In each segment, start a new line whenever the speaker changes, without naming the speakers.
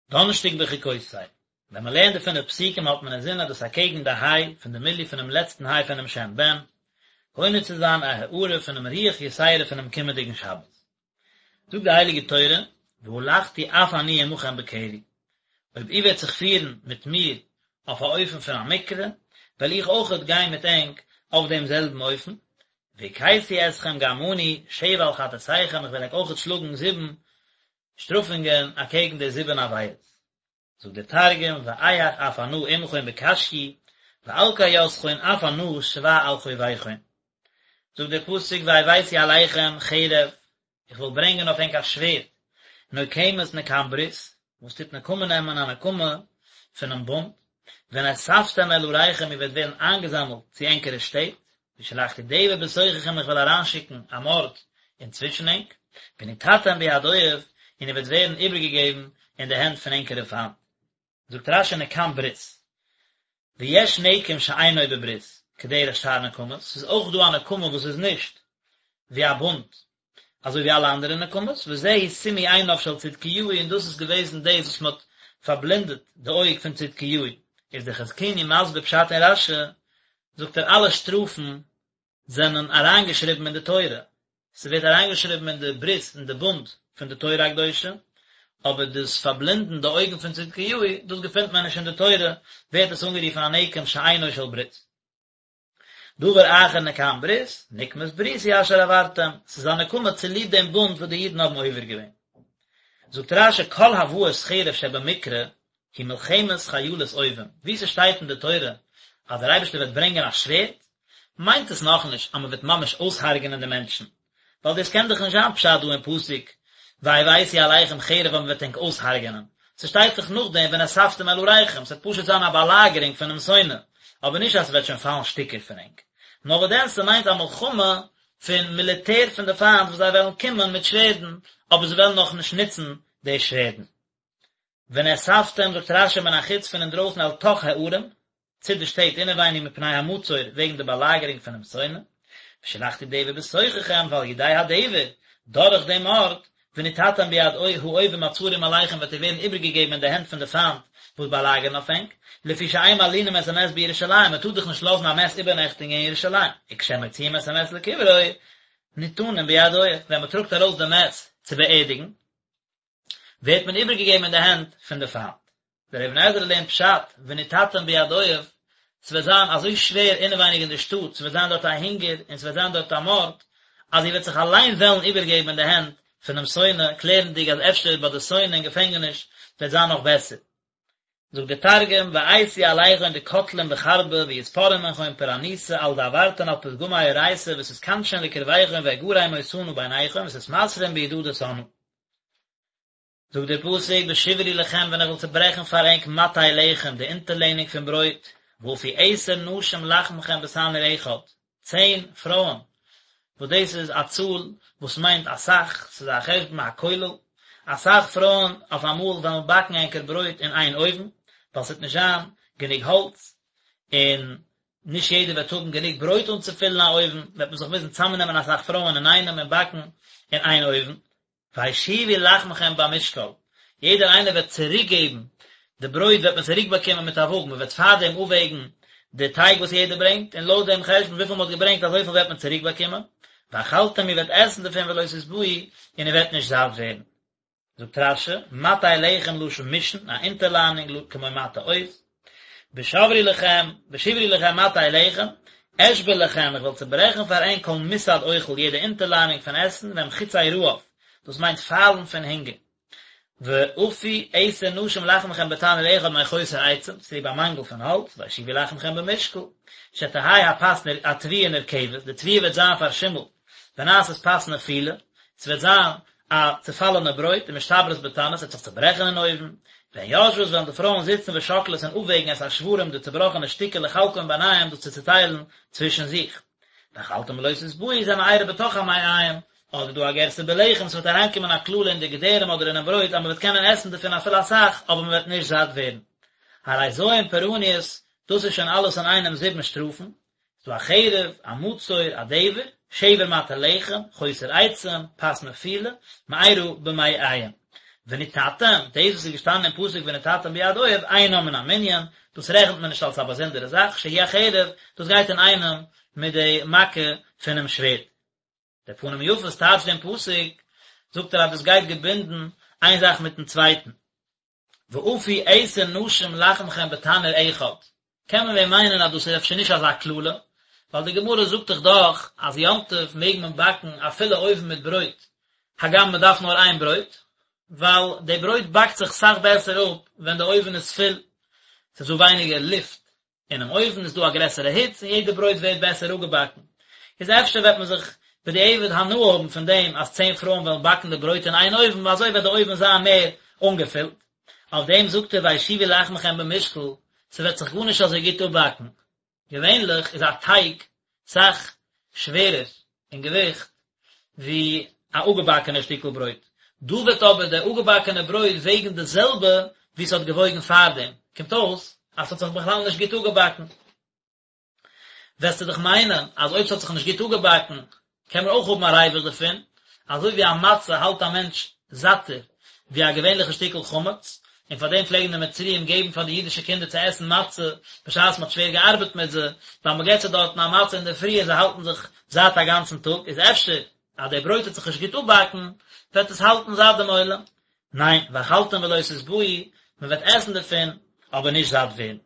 דאנערשטאג בחוקותי, ווען מען לערנט די פינף פסוקים האט מען אינזין אז דאס אקעגן די היי פון די מילוי פונעם לעצטן היי פונעם שם ב"ן, קונה צו זיין א הארה פונעם רוח יתירה פונעם קומענדיגן שבת. זאגט די הייליגע תורה, והלכתי אף אני עמכם בקרי, אויב איר וועט זיך פירן מיט מיר אויף א אופן פון א מקרה, וועל איך אויכעט גיין מיט ענק אויף דעם זעלבן אופן, והכיתי אתכם גם אני שבע על חטאתיכם, איך וועל ענק אויכעט שלאגן זיבן שטראפונגען אקעגן די זיבן עבירות. זאגט דער תרגום, ואיהך אף אנא עמכון בקשיי, ואלקי יתכון אף אנא שבע על חוביכון. זאגט דער פסוק והבאתי עליכם חרב, איך וועל ברענגען אויף ענק א שווערד, נוקמת נקם ברית, וואס טוט נקמה נעמען א נקמה פונעם בונד, ונאספתם אל עריכם איר וועט ווערן איינגעזאמלט צו ענקערע שטעט, ושלחתי דבר בתוככם איך וועל אריינשיקן א מארד אינצווישן ענק, ונתתם ביד אויב, און איר וועט ווערן איבערגעגעבן אין די הענט פון ענקערע פיינט. זאגט רש"י נקם ברית, ויש נקם שאינו בברית, כדרך שאר נקמות, ס'איז אויך דא א נקמה וואס איז נישט ווי א בונד, אזוי ווי אלע אנדערע נקמות, וזהו סימוי עיניו של צדקיהו און דאס איז געוועזן דאס וואס מען האט פארבלענדעט די אויג פון צדקיהו, איז דער חזקוני מסביר פשט אין רש"י, זאגט ער אלע שטראפן זענען אריינגעשריבן אין די תורה, ס'ווערט אריינגעשריבן אין די ברית אין די בונד פון די תורה הקדושה, אבער דאס פארבלענדן די אויגן פון צדקיהו, דאס געפינט מען נישט אין די תורה, ווערט עס אנגערופן א נקם שאינו של ברית. דבר אחר נקם ברית, נקמת בריתי אשר עברתם, ס'איז א נקמה צוליב דעם בונד וואס די אידן האבן עובר געווען. זאגט רש"י כל הבאת חרב שבמקרא היא מלחמת חיילות אויבים, וואו ס'שטייט אין די תורה אז דער אייבערשטער וועט ברענגען א שווערד, מיינט עס נאכנישט אז מ'וועט ממש אויסהרג'ענען די מענטשן, ווייל דאס קען דאך נישט זיין פשט דא אין פסוק והבאתי עליכם חרב אז מ'וועט ענק אויסהרג'ענען, ס'שטייט דאך נאכדעם ונאספתם אל עריכם, ס'וועט פשוט זיין א באלאגערונג פונעם שונא, אבער נישט אז ס'וועט שוין פאלן שטיקער פון ענק. נאר וואס דען ס'מיינט א מלחמה פון מיליטער פון די פיינט וואס זיי וועלן קומען מיט שווערדן, אבער זיי וועלן נאכנישט נוצן די שווערדן. ונאספתם זאגט רש"י מן החוץ פון אינדרויסן אל תוך הערים, צו די שטעט אינעווייניג מפני המצור וועגן די באלאגערונג פונעם שונא, ושלחתי דבר בתוככם ועל ידי הדבר, דורך דעם מארד, ונתתם ביד האויבים הצרים עליכם וועט איר ווערן איבערגעגעבן אין די הענט פון די פיינט וואס באלאגערן אויף ענק, לפי שאין מלינים את המת בירושלים, מען טאר דאך נישט לאזן א מת איבערנעכטיגן אין ירושלים, וכשמוציאים את המת לקברו, ניתנים ביד אויב, ווען מען טראגט ארויס די מת צו באערדיגן, ווערט מען איבערגעגעבן אין די הענט פון די פיינט. דער אבן עזרא לערנט פשט, ונתתם ביד אויב, ס'וועט זיין אזוי שווער אינעווייניג אין די שטאט, ס'וועט זיין דארט א הונגער און ס'וועט זיין דארט א מארד, אז איר וועט זיך אליין וועלן איבערגעבן אין די הענט פונעם שונא, קלערנדיג אז אפשר ביי די שונא אין געפענגעניש וועט זיין נאך בעסער. זאגט דער תרגום, ואייתי עליכון דקטלין בחרבא ויתפרעון מנכון פורענותא על דעברתון על פתגמי אורייתא ותתכנשון לקרביכון ואגרי מותנא ביניכון ותתמסרון בידא דשנאא. זאגט דער פסוק בשברי לכם ווען איך וועל צעברעכן פאר ענק מטה לחם די אונטערלענונג פון ברויט, ואפו עשר נשים לחמכם בתנור אחד, צען פרויען, וואס דאס איז א צאל וואס מיינט אסאך, ס'איז א חשבון הכולל, אסאך פרויען אויף אמאל וועלן באקן ענקער ברויט אין איין אויוון, ווייל ס'וועט נישט זיין גענוג האלץ, און נישט יעדער וועט האבן גענוג ברויט אנצופילן א אויוון, וועט מען זיך מוזן צאמנעמען אסאך פרויען אינאיינעם און באקן אין איין אויוון. והשיבו לחמכם במשקל, יעדער איינער וועט צוריק געבן, די ברויט וועט מען צוריק באקומען מיט א וואג, מען וועט פארדעם אפוועגן די טייג וואס יעדער ברענגט, און לויט דעם חשבון וויפיל מען האט געברענגט אזויפיל וועט מען צוריק באקומען, ואכלתם איר וועט עסן דערפון ולא תשבעו, און איר וועט נישט זאט ווערן. זאגט רש"י, מטה לחם לשון משען, א אונטערליינונג כמו מטה עוז, בשברי לכם, בשברי לכם מטה לחם, אשבר לכם, איך וועל צעברעכן פאר ענק כל מסד אוכל, יעדע אונטערליינונג פון עסן, והם חצי רעב, דאס מיינט פיילן פון הונגער. ואפו עשר נשים לחמכם בתנור אחד מחוסר עצים, צוליב א מאנגל פון האלץ, והשיבו לחמכם במשקל, שתהא הפת התבואה נרקבת, די תבואה וועט זיין פארשימלט, ונעשית פת נפולה, ס'וועט זיין א צעפאלענע ברויט, ומשתברת בתנור, ס'וועט זיך צעברעכן אין אויוון, והן יושבות וועלן די פרויען זיצן ושוקלות און אפוועגן את השברים די צעבראכענע שטיקער לחלקם ביניהם דאס צו צעטיילן צווישן זיך. ואכלתם ולא תשבעו זה מארה בתוך המעיים, אדער דא א גירסא בלחם, ס'וועט אריינקומען א קללה אין די געדערים אדער אינעם ברויט אז מ'וועט קענען עסן דערפון אפילו אסאך אבער מ'וועט נישט זאט ווערן. הרי ז' פורעניות, דאס איז שוין אלעס אינאיינעם זיבן שטראפן, ס'דא א חרב, א מצור, א דבר, שבר מטה לחם, חוסר עצים, פת נפולה, מארה במעיים. ונתתם, דאס וואס איז געשטאנען אין פסוק ונתתם ביד אויב, אינה מן המנין, דאס רעכנט מען נישט אלס א באזונדערע זאך, שהיא החרב, דאס גייט אינאיינעם מיט די מכה פונעם שווערד. דער פנים יפות טייטשט דעם פסוק, זאגט ער אז דאס גייט געבינדן איין זאך מיטן צווייטן. ואפו עשר נשים לחמכם בתנור אחד, קען מען ווען מיינען אז דאס איז אפשר נישט אזא קללה, ווייל די גמרא זאגט דאך דאך אז יום טוב מעג מען באקן א פולע אויוון מיט ברויט, הגם מען דארף נאר איין ברויט, ווייל די ברויט באקט זיך סאך בעסער אפ ווען די אויוון איז פול, ס'איז דא ווייניגער לופט אינעם אויוון איז דא א גרעסערע היץ און יעדע ברויט ווערט בעסער אפגעבאקן. איז אפשר וועט מען זיך בדיעבד הנאה האבן פון דעם אז צען פרויען וועלן באקן די ברויט אין איין אויוון ווייל אזוי וועט די אויוון זיין מער אנגעפילט. אויף דעם זאגט ער והשיבו לחמכם במשקל, ס'וועט זיך גארנישט אזוי גוט אפבאקן. געווענליך איז א טייג סאך שווערער אין געוויכט ווי א אפגעבאקענע שטיקל ברויט, דא וועט אבער די אפגעבאקענע ברויט וועגן די זעלבע ווי ס'האט געוואויגן פארדעם, קומט אויס אז ס'האט זיך בכלל נישט גוט אפגעבאקן. וועסטו דאך מיינען אז אויב ס'האט זיך נישט גוט אפגעבאקן קען מען אויך האבן א ריווח דערפון, אזוי ווי א מצה האלט א מענטש זאטער ווי א געווענליכע שטיקל חמץ, און פאר דעם פלעגן די מצריים געבן פאר די אידישע קינדער צו עסן מצה בשעת מ'האט שווער געארבעט מיט זיי, ווייל מ'געט זיי דארטן א מצה אינדערפרי און זיי האלטן זיך זאט א גאנצן טאג, איז אפשר אז די ברויט וועט זיך נישט גוט אפבאקן, וועט עס האלטן זאט דעם עולם. ניין, ואכלתם ולא תשבעו, מ'וועט עסן דערפון, אבער נישט זאט ווערן.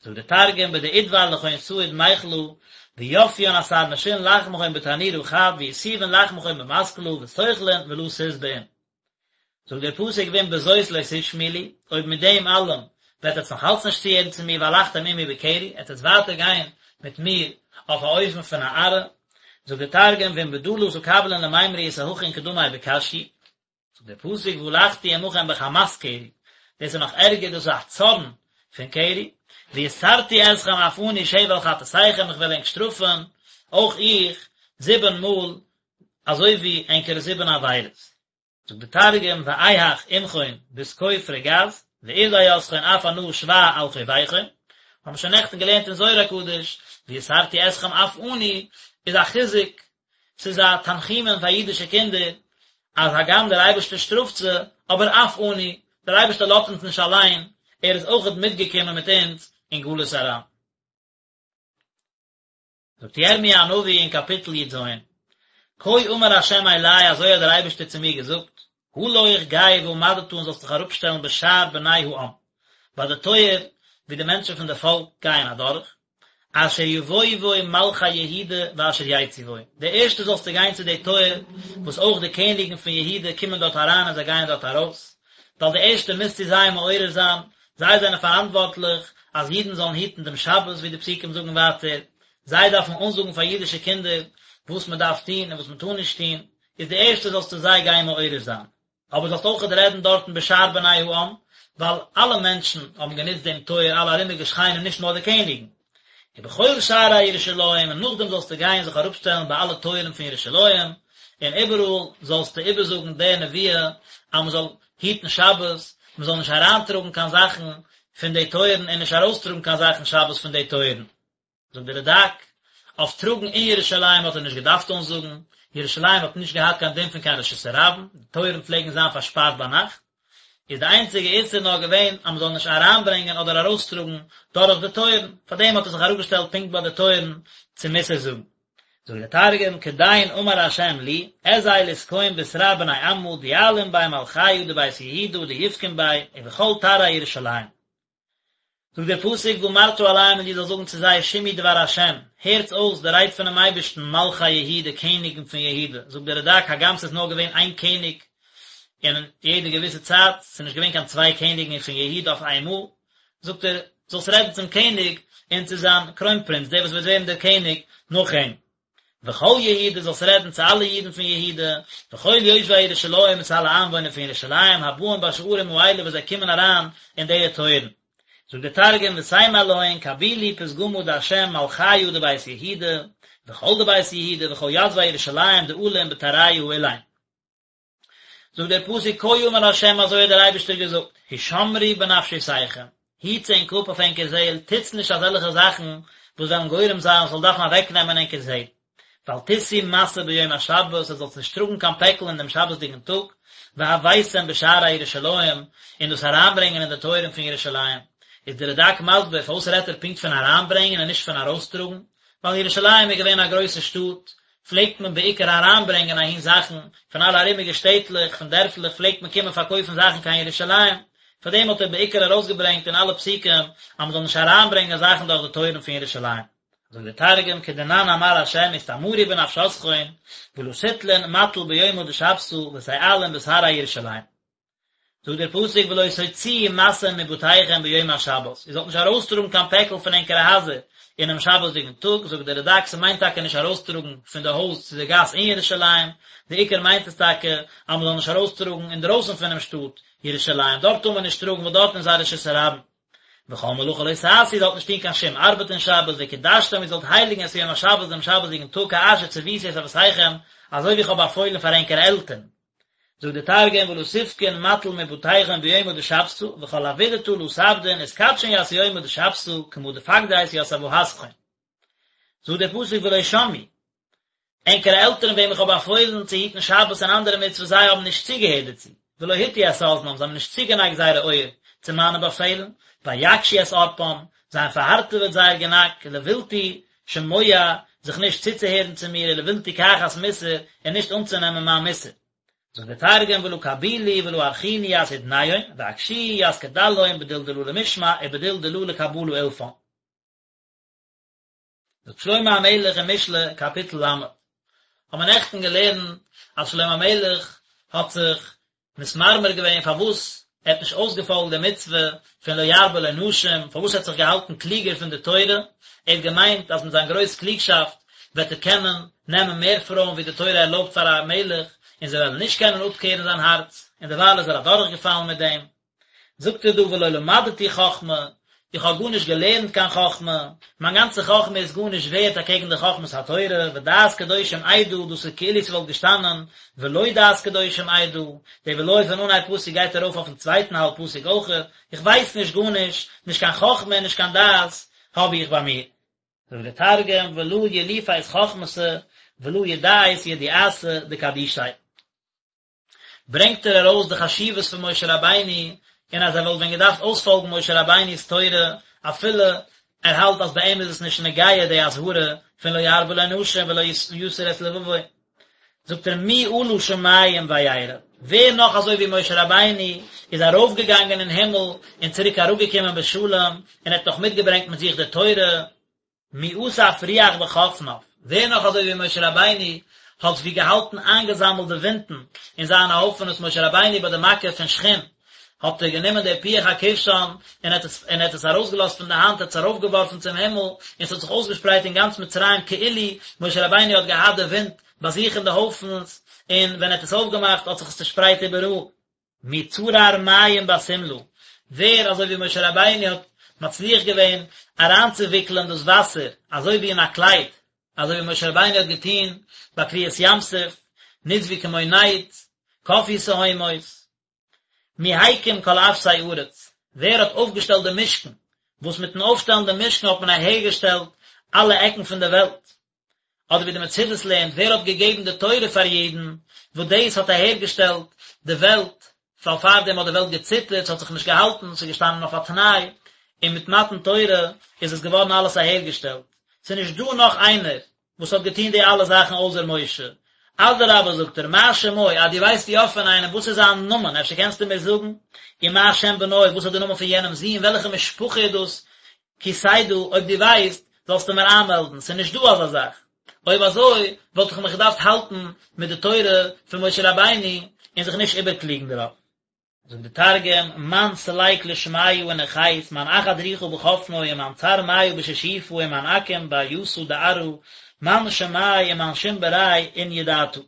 זאגט דער תרגום בדאידבר לכון סהיד מיכלא ויפיין עשר נשין לחמכון בתנורא חד ויתיבן לחמכון במסקלא ותוכלון ולא תשבעון. זאגט דער פסוק ואם בזאת לא תשמעו לי, אויב מיט דעם אלעם וועט עטס נאך אלץ נישט צוהערן צו מיר והלכתם עמי בקרי, עטס וועטס ווייטער גיין מיט מיר אויף א אופן פון א ארעה, זאגט דער תרגום ואם בדא לא תקבלון למימרא יתהכין קדמי בקשיי. זאגט דער פסוק והלכתי עמכם בחמת קרי, דאס איז נאך ערגער, דאס איז א צארן פון קרי, ויסרתי אתכם אף אני שבע על חטאתיכם, איך וועל ענק שטראפן, אויך איך, זיבן מאל, אזוי ווי ענקערע זיבן עבירות. זאגט דער תרגום ואיהך עמכון בתקוף רגז, וארדי אתכון אף אנא שבע על חוביכון, האבן שוין נעכטן געלערנט אין זוהר הקדוש, ויסרתי אתכם אף אני, איז א חיזוק ס'איז א תנחומין פאר אידישע קינדער, אז הגם דער אייבערשטער שטראפט זיי, אבער אף אני, דער אייבערשטער לאזט אונז נישט אליין, ער איז אויכעט מיטגעקומען מיט אונז אין גלות אריין. זאגט ירמי' הנביא אין קאפיטל י"ז, כה אמר ה' אלי, אזוי האט דער אייבערשטער צו מיר געזאגט, הלוך גיי ועמדת און זאלסט דיך אראפשטעלן בשער בני העם, ביי די טויער וואו די מענטשן פון די פאלק גייען אדורך, אשר יבואו בו מלכי יהודה ואשר יצאו בו, די ערשטע זאלסטו גיין צו די טויער וואס אויך די קעניגן פון יהודה קומען דארט אריין און זיי גייען דארט ארויס, ווייל די ערשטע מוזטו זיי מעורר זיין, זיי זענען פאראנטווארטליך אז אידן זאלן היטן דעם שבת ווי די פסוקים זאגן ווייטער, זיי דארפן אנזאגן פאר אידישע קינדער וואס מען דארף טון און וואס מען טאר נישט טון, איז די ערשטע זאלסטו זיי גיין מעורר זיין. אבער זאלסט אויכעט רעדן דארטן בשער בני העם, ווייל אלע מענטשן האבן גענוצט דעם טויער, אלע ארומיגע שכנים, נישט נאר די קעניגן. ובכל שערי ירושלים, און נאכדעם זאלסטו גיין זיך אראפשטעלן ביי אלע טויערן פון ירושלים, און איבעראל זאלסטו איבערזאגן די נבואה, אז מען זאל היטן שבת, מען זאל נישט אריינטראגן קיין זאכן פון די טויערן און נישט ארויסטראגן קיין זאכן שבת פון די טויערן. זאגט דער רד"ק, אויף טראגן אין ירושלים האט ער נישט געדארפט אנזאגן, ירושלים האט נישט געהאט קיין דין פון קיין רשות הרבים, די טויערן פלעגן זיין פארשפארט ביינאכט, איז די איינציגע איסור נאר געווען אז מען זאל נישט אריינברענגען אדער ארויסטראגן דורך די טויערן, פארדעם האט ער זיך אראפגעשטעלט פונקט ביי די טויערן צו מוסר זאגן. זאגט דער תרגום, כדין אמר ה' לי, אזיל ותקום בתרע בני עמא דיעלון ביה מלכיא דבית יהודה דיפקון ביה ובכל תרעי ירושלים. זאגט דער פסוק ואמרת אליהם און דו זאלסט זאגן צו זיי שמעו דבר השם, הערטס אויס די רייד פונעם אייבערשטן, מלכי יהודה, קעניגן פון יהודה, זאגט דער רד"ק, הגם ס'איז נאר געווען איין קעניג אין יעדע געוויסע צייט, ס'איז נישט געווען קיין צוויי קעניגן פון יהודה אויף איינמאל, זאגט ער, זאלסט רעדן צום קעניג און צו זיין קרוינפרינץ, דער וואס וועט ווערן דער קעניג נאך אים. וכל יהודה זאלסט רעדן צו אלע אידן פון יהודה, וכל יושבי ירושלים און צו אלע איינוואוינער פון ירושלים הבאים בשערים האלה וואס זיי קומען אריין אין די טויערן. זאגט דער תרגום ותימר להון קבילו פתגמא דה' מלכיא דבית יהודה, וכל דבית יהודה וכל יתבי ירושלים דעלין בתרעיא האלין. זאגט דער פסוק כה אמר ה' אזוי האט דער אייבערשטער געזאגט, הישמרו בנפשותיכם, היטס ענק אפ אויף ענקער זעהל, טוטס נישט אזעלכע זאכן וואס וועלן גורם זיין ס'זאל דארפן אוועקנעמען ענקער זעהל, ואל תשאו משא ביום השבת, עטס זאלטס נישט טראגן קיין פעקל אין דעם שבת'דיגן טאג, והבאתם בשערי ירושלים, און דאס אריינברענגען אין די טויערן פון ירושלים. איז די רד"ק מסביר פארוואס רעדט ער פונקט פון אריינברענגען און נישט פון ארויסטראגן, ווייל ירושלים איז געווען א גרויסע שטאט, פלעגט מען בעיקר אריינברענגען אהין זאכן, פון אלע ארומיגע שטעטלעך, פון דערפלעך פלעגט מען קומען פארקויפן זאכן קיין ירושלים, פאר דעם האט ער בעיקר ארויסגעברענגט אין אלע פסוקים אז מען זאל נישט אריינברענגען זאכן דורך די טויערן פון ירושלים. זאגט דער תרגום כדנן אמר ה' אסתמרו בנפשתכון ולא תטלון מטל ביומא דשבתא ותעלון בתרעי ירושלים. זאגט דער פסוק ולא תוציאו משא מבתיכם ביום השבת, איר זאלט נישט ארויסטראגן קיין פעקל פון ענקערע הייזער אינעם שבת'דיגן טאג, זאגט דער רד"ק ס'מיינט טאקע נישט ארויסטראגן פון די הויז צו די גאס אין ירושלים, די עיקר מיינט עס טאקע אז מ'זאל נישט ארויסטראגן אינדרויסן פונעם שטאט ירושלים, דארט טאר מען נישט טראגן ווייל דארטן איז א רשות הרבים. וכל מלאכה לא תעשו, איר זאלט נישט טון קיין שום ארבעט אין שבת, וקדשתם, איר זאלט הייליגן את יום השבת דעם שבת'דיגן טאג כאשר צוויתי את אבותיכם, אזוי ווי איך האב באפוילן פאר ענקערע עלטערן. זאגט דער תרגום ולא תפקון מטל מבתיכון ביומא דשבתא וכל עבידתא לא תעבדון ותקדשון ית יומא דשבתא כמא דפקדית ית אבהתכון. זאגט דער פסוק ולא שמעו, ענקערע עלטערן וועם איך האב באפוילן צו היטן שבת און אנדערע מצוות זיי האבן נישט צוגעהערט דערצו, ולא הטו את אזנם זיי האבן נישט צוגענייגט זייערע אויער צו מיינע באפעלן, ויקשו את ערפם, זיי האבן פארהארטעוועט זייער גענאק, לבלתי שמוע, זיך נישט צוצוהערן צו מיר, ולבלתי קחת מוסר, און נישט אנצונעמען מיין מוסר. זאגט דער תרגום ולא קבילו ולא ארכינו ית אודניהון, ואקשיאו ית קדלהון בדיל דלא למשמע ובדיל דלא לקבלא אילפן. זאגט שלמה המלך אין משלי קאפיטל ל', האבן מיר נעכטן געלערנט אז שלמה המלך האט זיך מתמרמר געווען פארוואס ער האט נישט אויסגעפאלגט די מצוה פון לא ירבה לו נשים, פארוואס ער האט זיך געהאלטן קלוגער פון די תורה, ער האט געמיינט אז מיט זיין גרויס קלוגשאפט וועט ער קענען נעמען מער פרויען ווי די תורה ערלויבט פאר א מלך, און זיי וועלן נישט קענען אפקערן זיין הארץ, און דערווייל איז ער אדורכגעפאלן מיט דעם. זאגט ער דא ולא למדתי חכמה, איך האב גארנישט געלערנט קיין חכמה, מיין גאנצע חכמה איז גארנישט ווערט אקעגן די חכמת התורה, ודעת קדושים אדע, דאס איז כאילו ס'וואלט געשטאנען ולא דעת קדושים אדע, די ולא פון אנהייב פסוק גייט ארויף אויפן צווייטן האלב פסוק אויכעט, איך ווייס נישט גארנישט, נישט קיין חכמה און נישט קיין דעת האב איך ביי מיר. זאגט דער תרגום ולא יליפית חכמתא ולא ידעית ידיעתא דקדישי. ברענגט ער ארויס די חשיבות פון משה רבינו, און אז ער וואלט ווען געדארפט אויספאלגן משה רבינו'ס תורה, אפילו ער האלט אז ביי אים איז עס נישט נוגע די אזהרה פון לא ירבה לו נשים ולא יסור את לבבו. זאגט ער מי עלה שמים וירד, ווער נאך אזוי ווי משה רבינו איז ארויפגעגאנגען אין הימל און צוריק אראפגעקומען בשלום, און ער האט נאך מיטגעברענגט מיט זיך די תורה, מי אסף רוח בחפניו, ווער נאך אזוי ווי משה רבינו האט ווי געהאלטן איינגעזאמלט די ווינטן אין זיינע הויפענעס משה רבינו ביי די מכה פון שחין האט ער גענומען די פוח הכבשן און האט עס און האט עס ארויסגעלאזט פון די האנט האט עס ארויפגעווארפן צום הימל און עס האט זיך אויסגעשפרייט אין גאנץ מצרים כאילו משה רבינו האט געהאט די ווינט ביי זיך אין די הויפנס און ווען ער האט עס אויפגעמאכט האט זיך עס צושפרייט איבעראל. מי צרר מים בשמלה, ווער אזוי ווי משה רבינו האט מצליח געווען אריינצואוויקלען דאס וואסער אזוי ווי אין א קלייד, אזוי ווי משה רבינו האט געטון ביי קריעת ים סוף, נצבו כמו נד, קפאו תהומות. מי הקים כל אפסי ארץ, ווער האט אויפגעשטעלט די משכן, וואס מיטן אויפשטעלן די משכן האט מען אהערגעשטעלט אלע עקן פון די וועלט. אדער ווי די מצודות לערנט, ווער האט געגעבן די תורה פאר אידן, וואס דאס האט אהערגעשטעלט די וועלט, ווייל פארדעם האט די וועלט געציטערט, ס'האט זיך נישט געהאלטן, ס'איז געשטאנען אויף א תנאי, און מיט מתן תורה איז עס געווארן אלעס אהערגעשטעלט. ס'איז נישט דא נאך איינער וואס האט געטון די אלע זאכן אויסער משה. אדרבה זאגט ער, מה שמו, אז דו ווייסט יא פון איינעם, וואס איז זיין נאמען, אפשר קענסטו מיר זאגן, ומה שם בנו, וואס איז די נאמען פון יענעמ'ס זון, וועלכע משפחה איז דאס, כי תדע, אויב דו ווייסט, זאלסטו מיר איינמעלדן, ס'איז נישט דא אזא זאך. אויב אזוי, וואלט איך מיך געדארפט האלטן מיט די תורה פון משה רבינו און זיך נישט איבערקלוגן דערויף. זאגט די תרגום, מאן סליק לשמיא ונחית, מאן אחד רוחא בחפנוי ומאן צר מיא בשישופא ומאן אקים באריתא דארעא, מאן שמיה ומאן שים בריה אין ידעתא.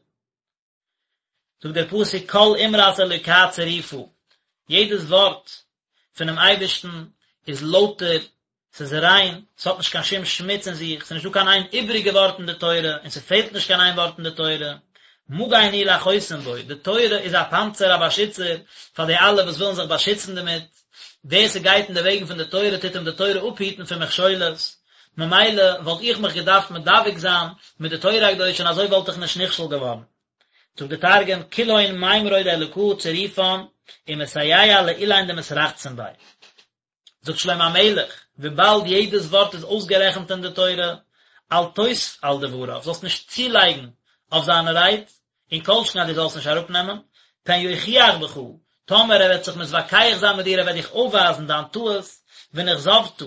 זאגט דער פסוק כל אמרת אלוקה צרופה, יעדעס ווארט פונעם אייבערשטן איז לויטער, ס'איז ריין, ס'האט נישט קיין שום שמוץ אין זיך, ס'איז נישטא קיין איין איבעריגע ווארט אין די תורה, און ס'פעלט נישט קיין איין ווארט אין די תורה. מגן הוא לחוסים בו, די תורה איז א פאנצער, א באשיצער, פאר די אלע וואס ווילן זיך באשיצן דערמיט, ווער ס'גייט אין די וועגן פון די תורה טוט אים די תורה אפהיטן פון מכשולות, ממילא וואלט איך מיך געדארפט מדבק זיין מיט די תורה הקדושה און אזוי וואלט איך נישט נכשל געווארן. זאגט דער תרגום, כולהון מימרוי דאלקא צירופן, ומסייע לאלין דמתרחצין ביה. זאגט שלמה המלך, וויבאלד יעדעס ווארט איז אויסגערעכנט אין די תורה, אל תוסף על דבריו, זאלסט נישט צולייגן אויף זיינע רייד, און כל שכן אז דו זאלסט נישט אראפנעמען, פן יוכיח בך, טאמער ער וועט זיך מתווכח זיין מיט דיר, ער וועט דיך אויפווייזן דיין טעות, ונכזבת,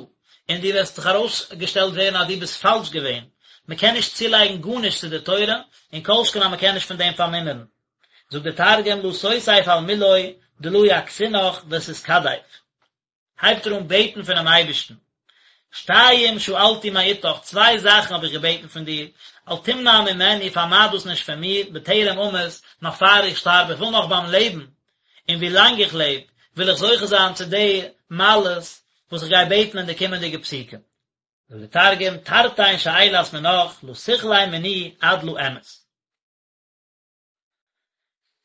און דו וועסט זיך ארויסגעשטעלט ווערן אז דו ביסט פאלש געווען, מען קען נישט צולייגן גארנישט צו די תורה, און כל שכן אז מען קען נישט פון דעם פארמינערן. זאגט דער תרגום לא תוסיף על מילוי דלא יכסינך ותתכדיף. הייבט ער אן בעטן פונעם אייבערשטן, שתיים שאלתי מאתך, צוויי זאכן האב איך געבעטן פון דיר, אל תמנע ממני, פארמייד דאס נישט פון מיר, בטרם אמות, נאך פאר איך שטארב, איך וויל נאך ביים לעבן, און ווי לאנג איך לעב, וויל איך זוכה זיין צו די מעלות וואס איך גיי בעטן אין די קומענדיגע פסוקים. זאגט דער תרגום, תרתין שאילת מנך, לא תכלי מני עד לא אמות.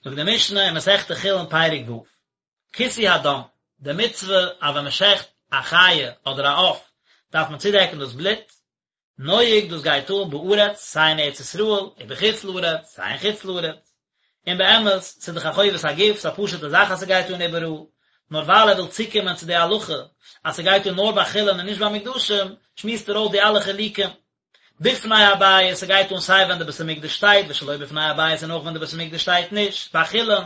זאגט די משנה אין מסכת חולין פרק ו', כיסוי הדם, די מצוה אז ווען מען שעכט א חיה אדער א עוף דארף מען צודעקן דאס בלוט, נוהג דאס גייט אן בארץ סיי אין ארץ ישראל ובחוץ לארץ סיי אין חוץ לארץ, און באמת ס'איז דאך א חובת הגוף ס'איז א פשוטע זאך אז ס'גייט אן איבעראל, נאר ווייל ער וויל צוקומען צו די הלכה אז ס'גייט אן נאר ביי חולין און נישט ביי מוקדשים, שמועסט ער אויס די אלע חילוקים. בפני הבית, ס'גייט אן סיי ווען די בית המקדש שטייט, ושלא בפני הבית און אויך ווען די בית המקדש שטייט נישט, ביי חולין,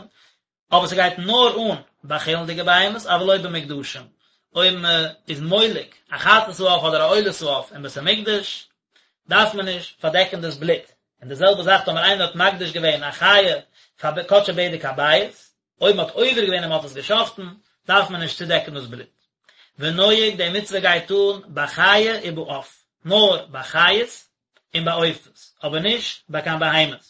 אבער ס'גייט נאר אן ביי חולין'דיגע בהמות, אבל לא במוקדשים, אויב מ'איז מולק א חטאת העוף אדער א עולת העוף אין בית המקדש, דארף מען נישט פארדעקן דאס בלוט, און די זעלבע זאך טאמער איינער האט מקדיש געווען א חיה פאר קדשי בדק הבית, אויב מ'האט עובר געווען און מ'האט עס גע'שחט'ן, דארף מען נישט צודעקן דאס בלוט. ונוהג, די מצוה גייט אן בחיה ובעוף, נאר ביי חיות און ביי עופות, אבער נישט ביי קיין בהמות.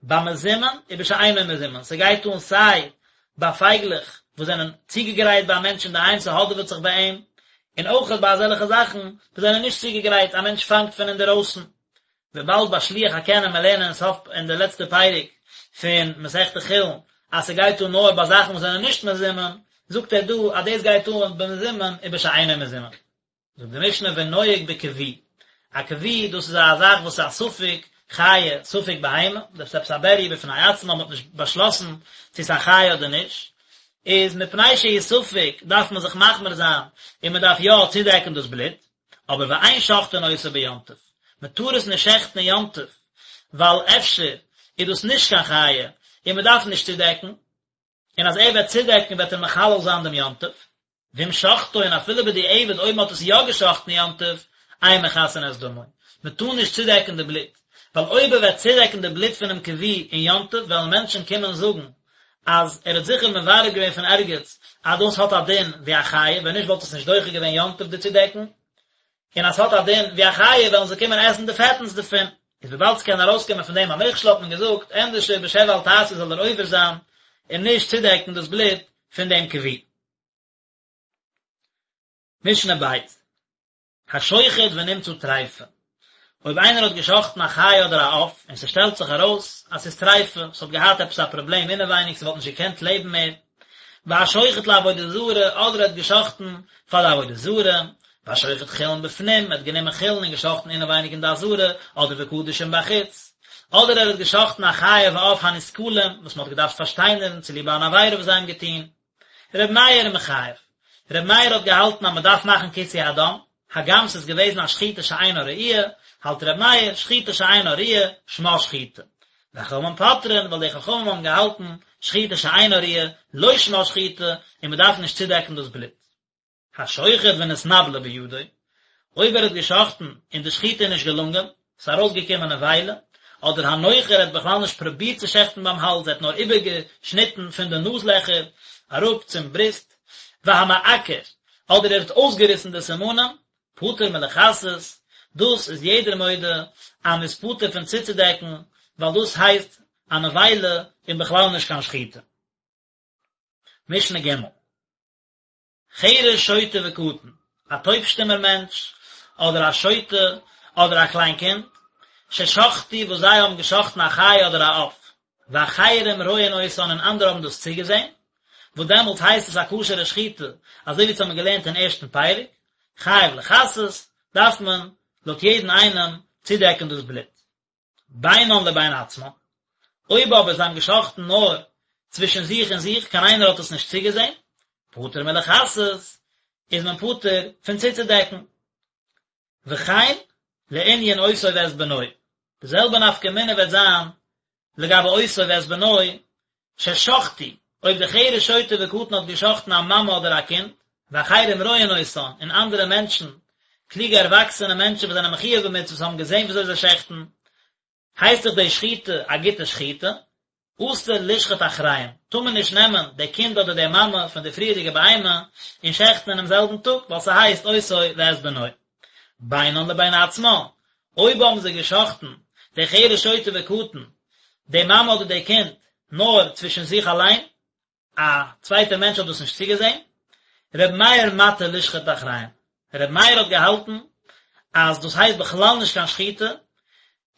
במזומן ובשאינו מזומן, ס'גייט אן סיי ביי פייגלעך וואס זענען צוגעגרייט ביי א מענטש אינדערהיים, ס'האדעוועט זיך ביי אים, און אויכעט ביי אזעלכע זאכן וואס זענען נישט צוגעגרייט, א מענטש פאנגט פון אינדערויסן. וויבאלד ביי שילוח הקן וועלן מיר לערנען אין סוף אין די לעצטע פרק פון מסכת חולין אז ס'גייט אן נאר ביי זאכן וואס זענען נישט מזומן, זאגט ער דא אז דאס גייט אן במזומן ובשאינו מזומן. זאגט די משנה ונוהג בכוי, א כוי דאס איז א זאך וואס איז א ספק חיה ספק בהמה, דאס איז עפעס א בריה בפני עצמה, מ'האט נישט באשלאסן צו ס'איז א חיה אדער נישט, איז מפני שהוא ספק דארף מען זיך מחמיר זיין און מ'דארף יא צודעקן דאס בלוט, אבער ואין שוחטין אותו ביום טוב, מען טאר עס נישט שעכטן אין יום טוב, ווייל אפשר איז דאס נישט קיין חיה און מען דארף נישט צודעקן, און אז ער וועט צודעקן וועט ער מחלל זיין דעם יום טוב, ואם שחטו און אפילו בדיעבד אויב מען האט עס יא געשחטן אין יום טוב, אין מכסין את דמו, מען טאר נישט צודעקן די בלוט, ווייל אויב ער וועט צודעקן די בלוט פונעם כוי אין יום טוב וועלן מענטשן קומען זאגן אז ער האט זיכער מברר געווען פון ערגעץ אז דאס האט א דין ווי א חיה, ווען נישט וואלט עס נישט דוחה געווען יום טוב די צודעקן, און אז ס'האט א דין ווי א חיה וועלן זיי קומען עסן די פעטנס דערפון, איז וויבאלד ס'קען ארויסקומען פון דעם א מכשול האט מען געזאגט ענדערשער בשב ואל תעשה זאל ער עובר זיין און נישט צודעקן דאס בלוט פון דעם כוי. משנה ב'. השוחט ונמצא טריפה, אויב איינער האט געשחטן א חיה אדער א עוף און ס'שטעלט זיך ארויס אז ס'איז טריפה, ס'האט געהאט עפעס א פראבלעם אינעווייניג ס'וואלט נישט געקענט לעבן מער, והשוחט לעבודה זרה, אדער ער האט געשחטן פאר די עבודה זרה, והשוחט חולין בפנים, ער האט גענומען חולין און געשחטן אינעווייניג אין די עזרה, אדער וקדשים בחוץ, אדער ער האט געשחטן א חיה ועוף הנסקלים, וואס מ'האט געדארפט פארשטיינערן צוליב אן עבירה וואס זיי האבן געטון. ר' מאיר מחייב. ר' מאיר האט געהאלטן אז מען דארף מאכן כיסוי הדם, הגם ס'איז געוועזן א שחיטה שאינה ראויה, האלט ר' מאיר, שחיטה שאינה ראויה, שמה שחיטה. וחכמים פוטרין, ווייל די חכמים האבן געהאלטן, שחיטה שאינה ראויה, לא שמה שחיטה, און מען דארף נישט צודעקן דאס בלוט. השוחט ונתנבלה בידו, אויב ער האט געשחטן און די שחיטה איז נישט געלונגען, ס'איז ארויסגעקומען נבילה, אדער הנוחר האט בכלל נישט פרובירט צו שעכטן ביים האלז, ער האט נאר איבערגעשניטן פון די נאז לעכער אראפ צום בריסט, והמעקר, אדער ער האט אויסגעריסן די סימנים, פטור מלכסות, דאס איז יעדער מודה אז מ'איז פטור פון צוצודעקן, ווייל דאס הייסט א נבילה און בכלל נישט קיין שחיטה. משנה ג'. חרש שוטה וקטן, א טויב-שטומער מענטש, אדער א שוטה, אדער א קליין קינד, ששחטו וואס זיי האבן געשחטן א חיה אדער א עוף, ואחרים רואין אותן און אנדערע האבן דאס צוגעזען, וואס דעמאלטס הייסט עס א כשר'ע שחיטה, אזוי ווי אונז האבן געלערנט אין ערשטן פרק, חייב לכסות, דארף מען, לויט יעדן איינעם, צודעקן דאס בלוט. בינן לבין עצמן. אויב אבער זיי האבן געשחט'ן נאר צווישן זיך און זיך, קיין איינער האט עס נישט צוגעזען, פטור מלכסות, איז מען פטור פון צוצודעקן. וכן לענין אותו ואת בנו, די זעלבע נפקא מינה וועט זיין לגבי אותו ואת בנו, ששחטו, אויב די חרש שוטה וקטן האט געשחטן א מאמע אדער א קינד, ואחרים רואין אותן, און אנדערע מענטשן, קלוגע ערוואקסענע מענטשן וואס זענען מחויב במצוות האבן געזען וויאזוי זיי שעכטן, הייסט דאך די שחיטה א גוטע שחיטה, אסור לשחוט אחריהם, טאר מען נישט נעמען די קינד אדער די מאמע פון די פריערדיגע בהמה און שעכטן אינעם זעלבן טאג, ווייל ס'הייסט אותו ואת בנו. בינן לבין עצמן, אויב האבן זיי געשחטן די חרש שוטה וקטן, די מאמע אדער די קינד, נאר צווישן זיך אליין, א צווייטער מענטש האט דאס נישט צוגעזען, ר' מאיר מתיר לשחוט אחריהם, ר' מאיר האט געהאלטן אז דאס הייסט בכלל נישט קיין שחיטה,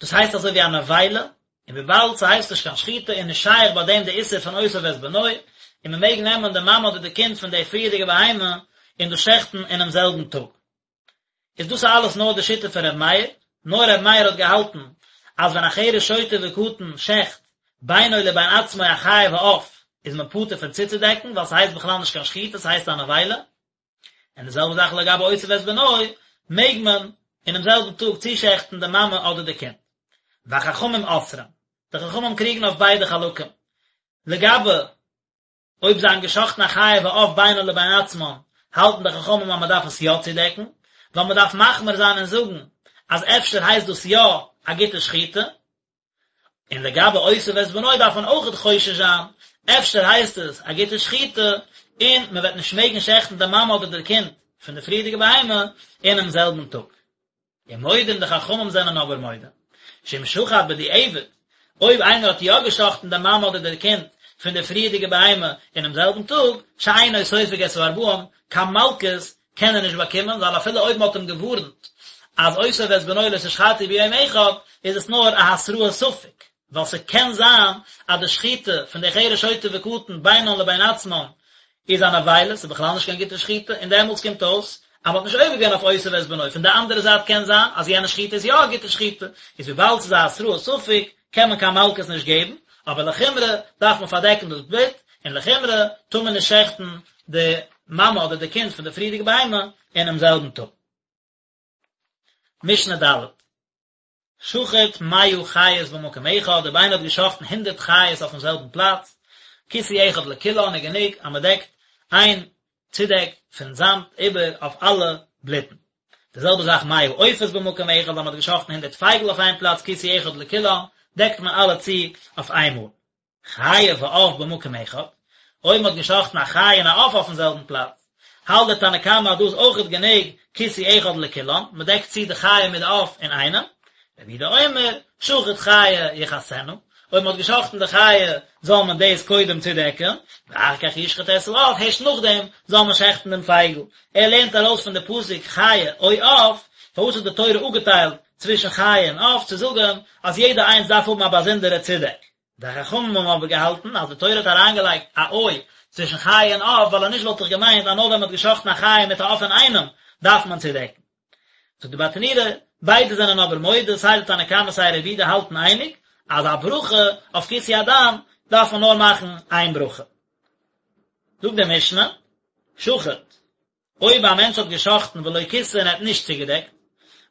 דאס הייסט אזוי ווי א נבילה, און וויבאלד ס'הייסט נישט קיין שחיטה איז נישט שייך ביי דעם די איסור פון אותו ואת בנו, און מ'מעג נעמען די מאמע אדער די קינד פון די פריערדיגע בהמה און דאס שעכטן אינעם זעלבן טאג. איז דאס אלעס נאר די שיטה פון ר' מאיר, נאר ר' מאיר האט געהאלטן אז ווען א חרש שוטה וקטן שעכט בינו לבין עצמו א חיה ועוף איז מען פטור פון צוצודעקן ווייל ס'הייסט בכלל נישט קיין שחיטה ס'הייסט א נבילה, און די זעלבע זאך לגבי אותו ואת בנו מעג מען אינעם זעלבן טאג צושעכטן די מאמע אדער די קינד. והחכמים אוסרים, די חכמים קריגן אויף ביידע חלקים לגבי אויב זיי האבן געשחטן א חיה ועוף בינן לבין עצמן, האלטן די חכמים אז מען דארף עס יא צודעקן, ווייל מען דארף מחמיר זיין און זאגן אז אפשר הייסט דאס יא א גוטע שחיטה. און לגבי אותו ואת בנו דארף מען אויכעט חושש זיין, אפשר הייסט עס א גוטע שחיטה, און מען וועט נישט מעגן שעכטן די מאמע אדער די קינד פון די פריערדיגע בהמה אינעם זעלבן טאג. ומודים די חכמים זענען אבער מודה, שאם שחט בדיעבד, אויב איינער האט יא געשחטן די מאמע אדער די קינד פון די פריערדיגע בהמה אינעם זעלבן טאג, שאינו סופג את הארבעים, קיין מלקות קען ער נישט באקומען, ווייל אפילו אויב מען האט אים געווארנט אז אותו ואת בנו לא תשחטו ביום אחד, איז עס נאר א התראת ספק, ווייל ס'קען זיין אז די שחיטה פון די חרש שוטה וקטן בינן לבין עצמן איז א נבילה, ס'איז בכלל נישט קיין גוטע שחיטה, און דעמאלטס קומט אויס אז מ'האט נישט עובר געווען אויף אותו ואת בנו, פון די אנדערע זייט קען זיין אז יענע שחיטה איז יא א גוטע שחיטה, איז וויבאלד ס'איז א התראת ספק קען מען קיין מלקות נישט געבן, אבער לחומרא דארף מען פארדעקן דאס בלוט, און לחומרא טאר מען נישט שעכטן די מאמע אדער די קינד פון די פריערדיגע בהמה אינעם זעלבן טאג. משנה ד'. שחט מאה חיות במקום אחד, אויב איינער האט געשחטן הונדרעט חיות אויפן זעלבן פלאץ, כיסוי אחד לכולן איז גענוג אז מען דעקט איין צודעק פון זאמד איבער אויף אלע בלוטן. די זעלבע זאך מאה עופות במקום אחד, אז מען האט געשחטן הונדרעט פייגל אויף איין פלאץ, כיסוי אחד לכולן, דעקט מען אלע צו אויף איינמאל. חיה ועוף במקום אחד, אויב מ'האט געשחטן א חיה און א עוף אויפן זעלבן פלאץ, האלט דער תנא קמא אז דא איז אויכעט גענוג כיסוי אחד לכולן, מ'דעקט צו די חיה מיט די עוף אינאיינעם, רבי יהודה אומר, שחט חיה יכסנה, אויב מ'האט געשחטן די חיה זאל מען דאס קודם צודעקן, ואחר כך ישחט את העוף, הערשט נאכדעם זאל מען שעכטן דעם פייגל. ער לערנט ארויס פון די פסוק חיה או עוף, פארוואס האט די תורה אפגעטיילט צווישן חיה און עוף, צו זאגן אז יעדע איינס דארף האבן א באזונדערע צודעק. די חכמים האבן אבער געהאלטן אז די תורה האט אריינגעלייגט א או צווישן חיה און עוף ווייל אנישט וואלט איך געמיינט אז נאר ווען מען האט געשחטן א חיה מיט א עוף אינאיינעם דארף מען צודעקן. זאגט די ברטנורא, ביידע זענען אבער מודה, סיי די תנא קמא סיי רבי יהודה האלטן אייניג, אז א ברכה אויף כיסוי הדם דארף מען נאר מאכן איין ברכה. זאגט די משנה, שחט, אויב א מענטש האט גע'שחט'ן ולא כיסה און ער האט נישט צוגעדעקט,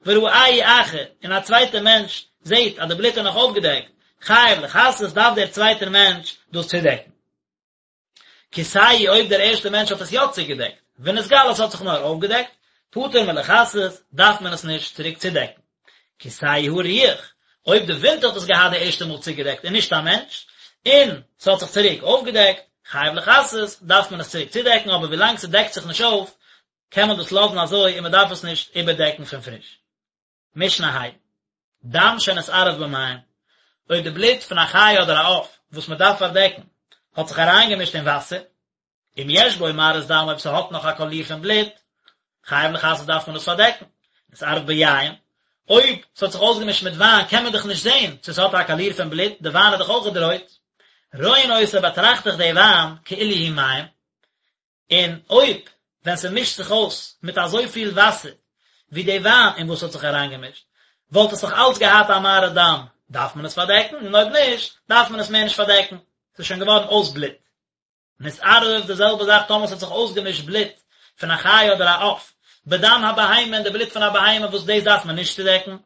וראהו אחר, און א צווייטער מענטש זעט אז די בלוט איז נאך אויפגעדעקט, חייב לכסות, דארף דער צווייטער מענטש דאס צודעקן. כיסהו אויב דער ערשטער מענטש האט עס יא צוגעדעקט, ונתגלה עס האט זיך נאר אויפגעדעקט, פטור מלכסות, דארף מען עס נישט צוריק צודעקן. כסהו הרוח, אויב די ווינט האט עס געהאט די ערשטע מאל צוגעדעקט און נישט א מענטש, און ס'האט זיך צוריק אויפגעדעקט, חייב לכסות, דארף מען עס צוריק צודעקן, אבער ווילאנג ס'דעקט זיך נישט אויף, קען מען דאס לאזן אזוי און מ'דארף עס נישט איבערדעקן פון פריש. משנה ה'. דם שנתערב במים, אויב די בלוט פון א חיה אדער א עוף וואס מ'דארף פארדעקן האט זיך אריינגעמישט אין וואסער, אם יש בו מראית דם אויב ס'האט נאך א קאליר פון בלוט, חייב לכסות דארף מען עס פארדעקן, נתערב ביין, אויב ס'האט זיך אויסגעמישט מיט וויין קען מען דאך נישט זען צו ס'האט א קאליר פון בלוט, די וויין איז דאך אויכעט רויט, רואין אותו באטראכט איך די וויין כאילו הוא מים, און אויב ווען ס'מישט זיך אויס מיט אזויפיל וואסער ווי די וויין אין וואס ס'האט זיך אריינגעמישט, וואלט עס נאך אלץ געהאט א מראית דם. דארף מען עס פארדעקן, און אויב נישט, דארף מען עס מער נישט פארדעקן, ס'איז שוין געווארן אויס בלוט. נתערב, די זעלבע זאך טאמער ס'האט זיך אויסגעמישט בלוט פון א חיה אדער א עוף, בדם הבהמה אין די בלוט פון א בהמה וואס דאס דארף מען נישט צודעקן,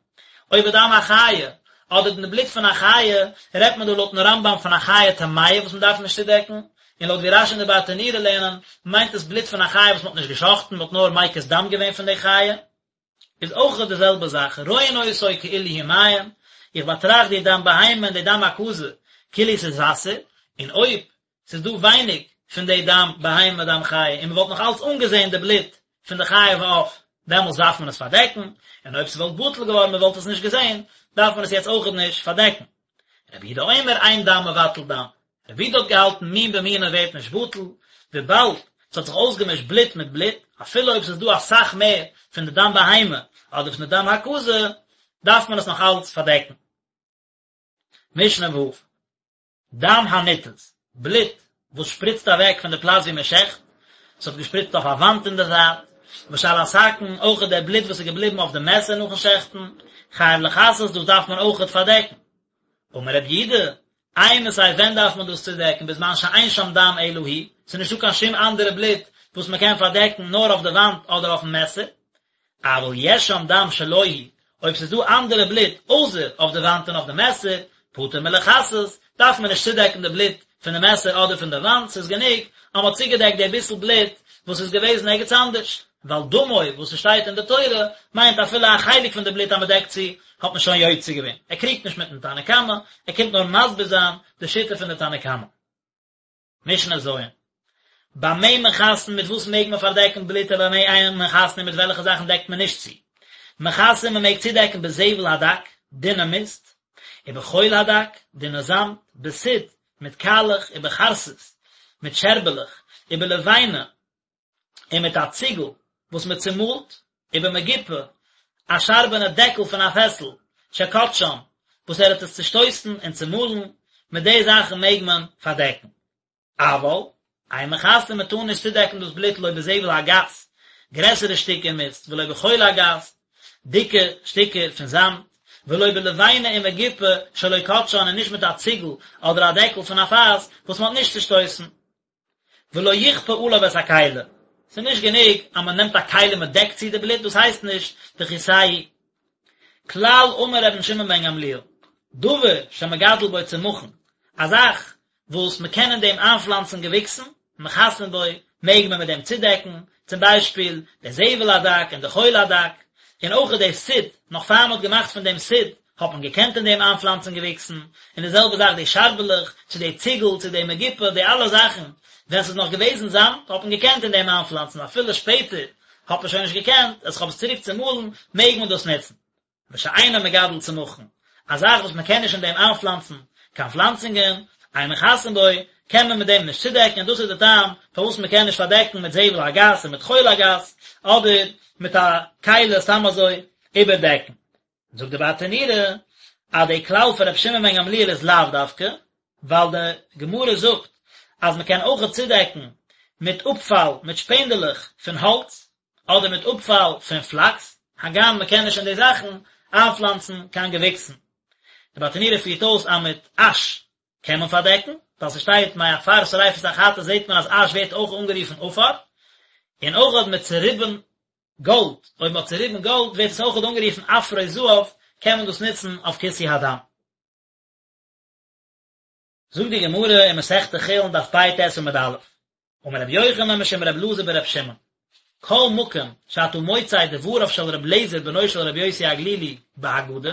או בדם החיה, אדער אין די בלוט פון א חיה, רעדט מען דא לויטן רמב"ם פון א חיה טמאה וואס מען דארף נישט צודעקן, און לויט ווי רש"י און די ברטנורא לערנען, מיינט עס בלוט פון א חיה וואס מען האט נישט גע'שחט'ן, מען האט נאר מקיז דם געווען פון די חיה. איז אויך די זעלבע זאך, רואין אותו כאילו הוא מים, איך באטראכט די דם בהמה און די דם הקזה כאילו ס'איז וואסער, און אויב ס'איז דא ווייניג פון די דם בהמה דם חיה און מ'וואלט נאך אלץ אנגעזען די בלוט פון די חיה ועוף, דעמאלס דארף מען עס פארדעקן, און אויב ס'וואלט בטל געווארן מ'וואלט עס נישט געזען, דארף מען עס יעצט אויכעט נישט פארדעקן. רבי יהודה אומר אין דם מבטל דם, רבי יהודה האט געהאלטן מין במינו ווערט נישט בטל, וויבאלד ס'האט זיך אויסגעמישט בלוט מיט בלוט, אפילו אויב ס'איז דא אסאך מער פון די דם בהמה אדער פון די דם הקזה, דארף מען עס נאך אלץ פארדעקן. משנה ו'. דם הניתז, בלוט וואס שפריצט אוועק פון די פלאץ ווי מען שעכט, ס'האט געשפריצט אויף א וואנט אין די זייט, ושעל הסכין, אויכעט דער בלוט וואס איז געבליבן אויף די מעסער נאכן שעכטן, חייב לכסות, דאס דארף מען אויכעט פארדעקן. אמר רבי יהודה, אימתי ווען דארף מען דאס צודעקן בזמן שאין שם דם אלא הוא, ס'איז נישטא קיין שום אנדערע בלוט וואס מען קען פארדעקן נאר אויף די וואנט אדער אויפן מעסער, אבל יש שם דם שלא הוא, אויב ס'איז דא אנדערע בלוט אויסער אויף די וואנט און אויף די מעסער, פטור מלכסות, דארף מען נישט צודעקן די בלוט פון די מעסער אדער פון די וואנט, ס'איז גענוג אז מ'האט צוגעדעקט די ביסל בלוט וואס איז געוועזן ערגעץ אנדערש, ווייל דמו וואס ס'שטייט אין די תורה מיינט אפילו א חלק פון די בלוט אז מ'דעקט צו האט מען שוין יוצא געווען, ער קריגט נישט מיטן תנא קמא, ער קומט נאר מסביר זיין די שיטה פון די תנא קמא. משנה ז'. במה מכסין מיט וואס מעג מען פארדעקן בלוט ובמה אין מכסין און מיט וועלכע זאכן דעקט מען נישט צו. מכסין מען מעג צודעקן בזבל הדק, דינע מיסט, ובחול הדק, דינע זאמד, בסיד, מיט קאלעך, ובחרסית, מיט שערבעלעך, ובלבנה, און מיט א ציגל וואס מען צומאלט, ובמגופה, א שארבענע דעקל פון א פעסל, שכתשן, וואס ער האט עס צושטויסן און צומאלן, מיט די זאכן מעג מען פארדעקן. אבל, אין מכסין מען טאר נישט צודעקן דאס בלוט לא בזבל הגס, גרעסערע שטיקער מיסט, ולא בחול הגס, דיקע שטיקער פון זאמד, ולא בלבנה ומגופה שלא כתשן און נישט מיט א ציגל אדער א דעקל פון א פאס וואס מען האט נישט צושטויסן. ולא יכפה עליו את הכלי, ס'איז נישט גענוג אז מען נעמט א כלי און מען דעקט צו די בלוט, דאס הייסט נישט וכסהו. כלל אמר רבן שמעון בן גמליאל, דבר שמגדל בו צמחין, א זאך וואס מען קען אין דעם איינפלאנצן געוויקסן, מכסין בו, מעג מען מיט דעם צודעקן, צום ביישפיל, די זבל הדק און די חול הדק, און אויך די סיד, נאך פאר מען האט געמאכט פון דעם סיד, האט מען געקענט אין דעם איינפלאנצן געוויקסן, און די זעלבע זאך די שארבעלעך, צו די ציגל, צו די מגופה, די אלע זאכן, ווען ס'איז נאך געוועזן זאמד, האט מען געקענט אין דעם איינפלאנצן, אפילו שפעטער האט מען שוין נישט געקענט, אז כ'האב עס צוריק צומאלן, מעג מען דאס נוצן. ושאינו מגדל צמחין, א זאך וואס מען קען נישט אין דעם איינפלאנצן קיין פלאנצונגען, אין מכסין בו, קען מען מיט דעם נישט צודעקן, און דאס איז די טעם פארוואס מען קען נישט פארדעקן מיט זבל הגס און מיט חול הגס, אדער מיט א כלי סתם אזוי איבערדעקן. זאגט די ברטנורא אז די כלל פון רבי שמעון בן גמליאל איז לאו דווקא, ווייל די גמרא זאגט אז מען קען אויכעט צודעקן מיט אפפאל, מיט שפענדעלעך פון האלץ, אדער מיט אפפאל פון פלאקס, הגם מען קען נישט אין די זאכן איינפלאנצן קיין געוויקסן. די ברטנורא פירט אויס אז מיט אש קען מען פארדעקן, ווייל ס'שטייט מעפר שריפת החטאת זעט מען אז אש ווערט אויך אנגערופן עפר, און אויכעט מיט צוריבן גאלד, אויב מ'האט צוריבן גאלד ווערט עס אויכעט אנגערופן עפרות זהב, קען מען דאס נוצן אויף כיסוי הדם. זאגט די גמרא אין מסכת חולין דף פ"ט עמוד א', אמר רבי יוחנן משום רבי אלעזר ברבי שמעון, כל מקום שאתה מוצא דבריו של רבי אליעזר בנו של רבי יוסי הגלילי בהגדה,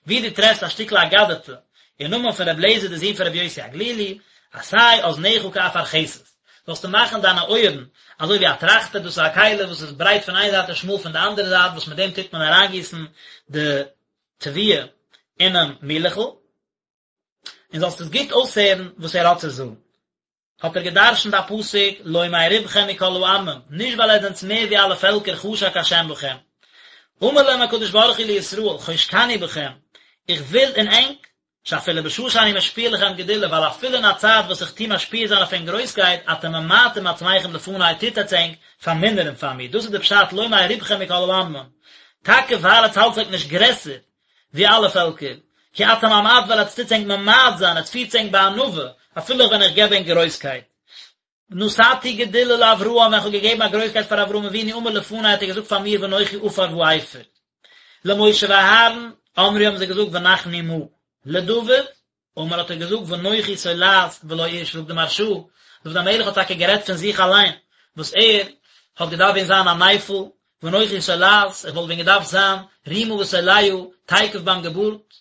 ווי דו טרעפסט א שטיקל אגדתא אין נאמען פון רבי אליעזר די זון פון רבי יוסי הגלילי, עשה אזניך כאפרכסת, זאלסטו מאכן דיינע אויערן אזוי ווי א טראכטער, דאס איז א כלי וואס איז ברייט פון איין זייט און שמאל פון די אנדערע זייט, וואס מיט דעם טוט מען אריינגיסן די תבואה אינעם מילעכל. און זאלסט עס גוט אויסהערן וואס ער האט צו זאגן. האט ער געדרשנט א פסוק, לא מרובכם מכל העמים, נישט ווייל עטס זענטס מער ווי אלע פעלקער חשק השם בכם. אמר להם הקדוש ברוך הוא לישראל, חושקני בכם, איך וויל אין ענק, שאפילו בשעה שאני משפיע לכם גדולה, ווייל אפילו אין א צייט וואס איך טו משפיע זיין אויף ענק גרויסקייט, אתם ממעטים עצמכם לפני, טוט עטס ענק פארמינערן פאר מיר, דאס איז די פשט לא מרובכם מכל העמים, טאקע ווייל עטס האלטס ענק נישט גרעסער ווי אלע פעלקער. כי אתם המעט ווייל עטס טוטס ענק ממעט זיין, עטס פירטס ענק בענווה, אפילו ווען איך געב ענק גרויסקייט. נתתי גדולה לאברהם, ווען איך האב געגעבן א גרויסקייט פאר אברהם אבינו אמר לפני האט ער געזאגט פאר מיר ואנכי עפר ואפר. למשה ואהרן, אמרו האבן זיי געזאגט ונחנו מה. לדוד, אמר האט ער געזאגט ואנכי תולעת ולא איש זאגט די מהרש"א, דוד המלך האט טאקע גערעדט פון זיך אליין, וואס ער האט געדארפט ווען זיין א נפל, ואנכי תולעת, איך וואלט ווען געדארפט זיין רימה ותולעה תיכף ביים געבורט,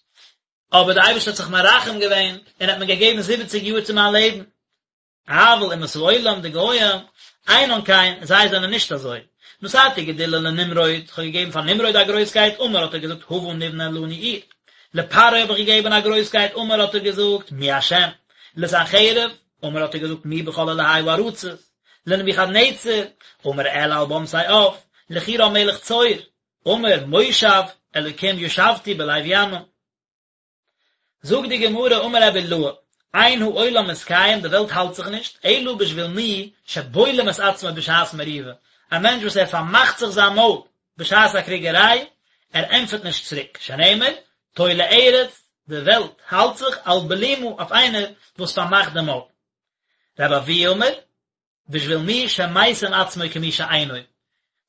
אבער דער אייבערשטער האט זיך מרחם געווען און האט מיר געגעבן זיבעציג יאר צו מיין לעבן. אבל אומות העולם, די גוים, אינן כן, זיי זענען נישט אזוי. נתתי גדולה לנמרוד, איך האב געגעבן פאר נמרוד א גרויסקייט, אמר האט ער געזאגט הבה נבנה לנו עיר. לפרעה האב איך געגעבן א גרויסקייט, אמר האט ער געזאגט מי השם. לסנחריב, אמר האט ער געזאגט מי בכל אלהי הארצות. לנבוכדנצר, אמר אעלה על במתי עב. לחורם מלך צור, אמר מושב אלוקים ישבתי בלב ימים. זאגט די גמרא אמר רבי אילעא, אין העולם מתקיים די וועלט האלט זיך נישט, אלא בשביל מי שבולם את עצמו בשעת מריבה, א מענטש וואס ער פארמאכט זיך זיין מויל בשעת א קריגעריי, ער ענטפערט נישט צוריק, שנאמר, תולה ארץ, די וועלט האלט זיך על בלימה אויף איינער וואס פארמאכט די מויל. רבי אבהו אמר, בשביל מי שמשים עצמו כמי שאינו,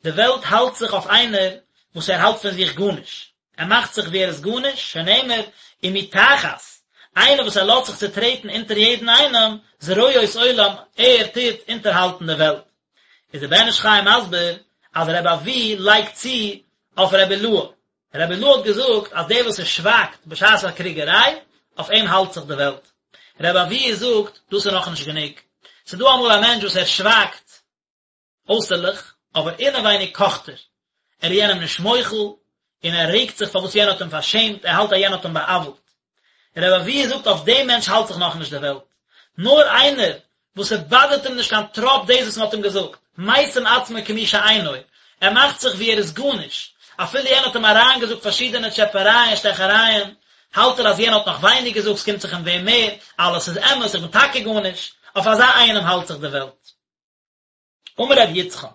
די וועלט האלט זיך אויף איינער וואס ער האלט פון זיך גארנישט, ער מאכט זיך ווי ער איז גארנישט, שנאמר, ומי תחת, איינער וואס ער לאזט זיך צוטרעטן אונטער יעדן איינעם, זרועות עולם, ער טוט אונטערהאלטן די וועלט. איז דער בן איש חי מסביר אז רבי אבהו לייגט צו אויף רבי אילעא, רבי אילעא האט געזאגט אז דער וואס ער שווייגט בשעת א קריגעריי, אויף אים האלט זיך די וועלט. רבי אבהו זאגט, דאס איז נאכנישט גענוג. ס'איז דא אמאל א מענטש וואס ער שווייגט אויסערליך, אבער אינעווייניג קאכט ער. ער איז יענעם נישט מוחל, און ער רעגט זיך פארוואס יענער האט אים פארשעמט, ער האלט אז יענער האט אים בא'עוול'ט. רבי אבהו זאגט אויף דעם מענטש האלט זיך נאכנישט די וועלט. נאר איינער וואס ס'באדערט אים נישט קיין טראפ דאס וואס מ'האט אים געזאגט, משים עצמו כמי שאינו, ער מאכט זיך ווי ער איז גארנישט, אפילו יענער האט אים אריינגעזאגט פארשידענע טשעפערייען און שטעכערייען, האלט ער אז יענער האט נאך ווייניג געזאגט, ס'קומט זיך אים ווען מער, אלעס איז אמת, איך בין טאקע גארנישט, אויף אזא איינעם האלט זיך די וועלט. אמר רבי יצחק,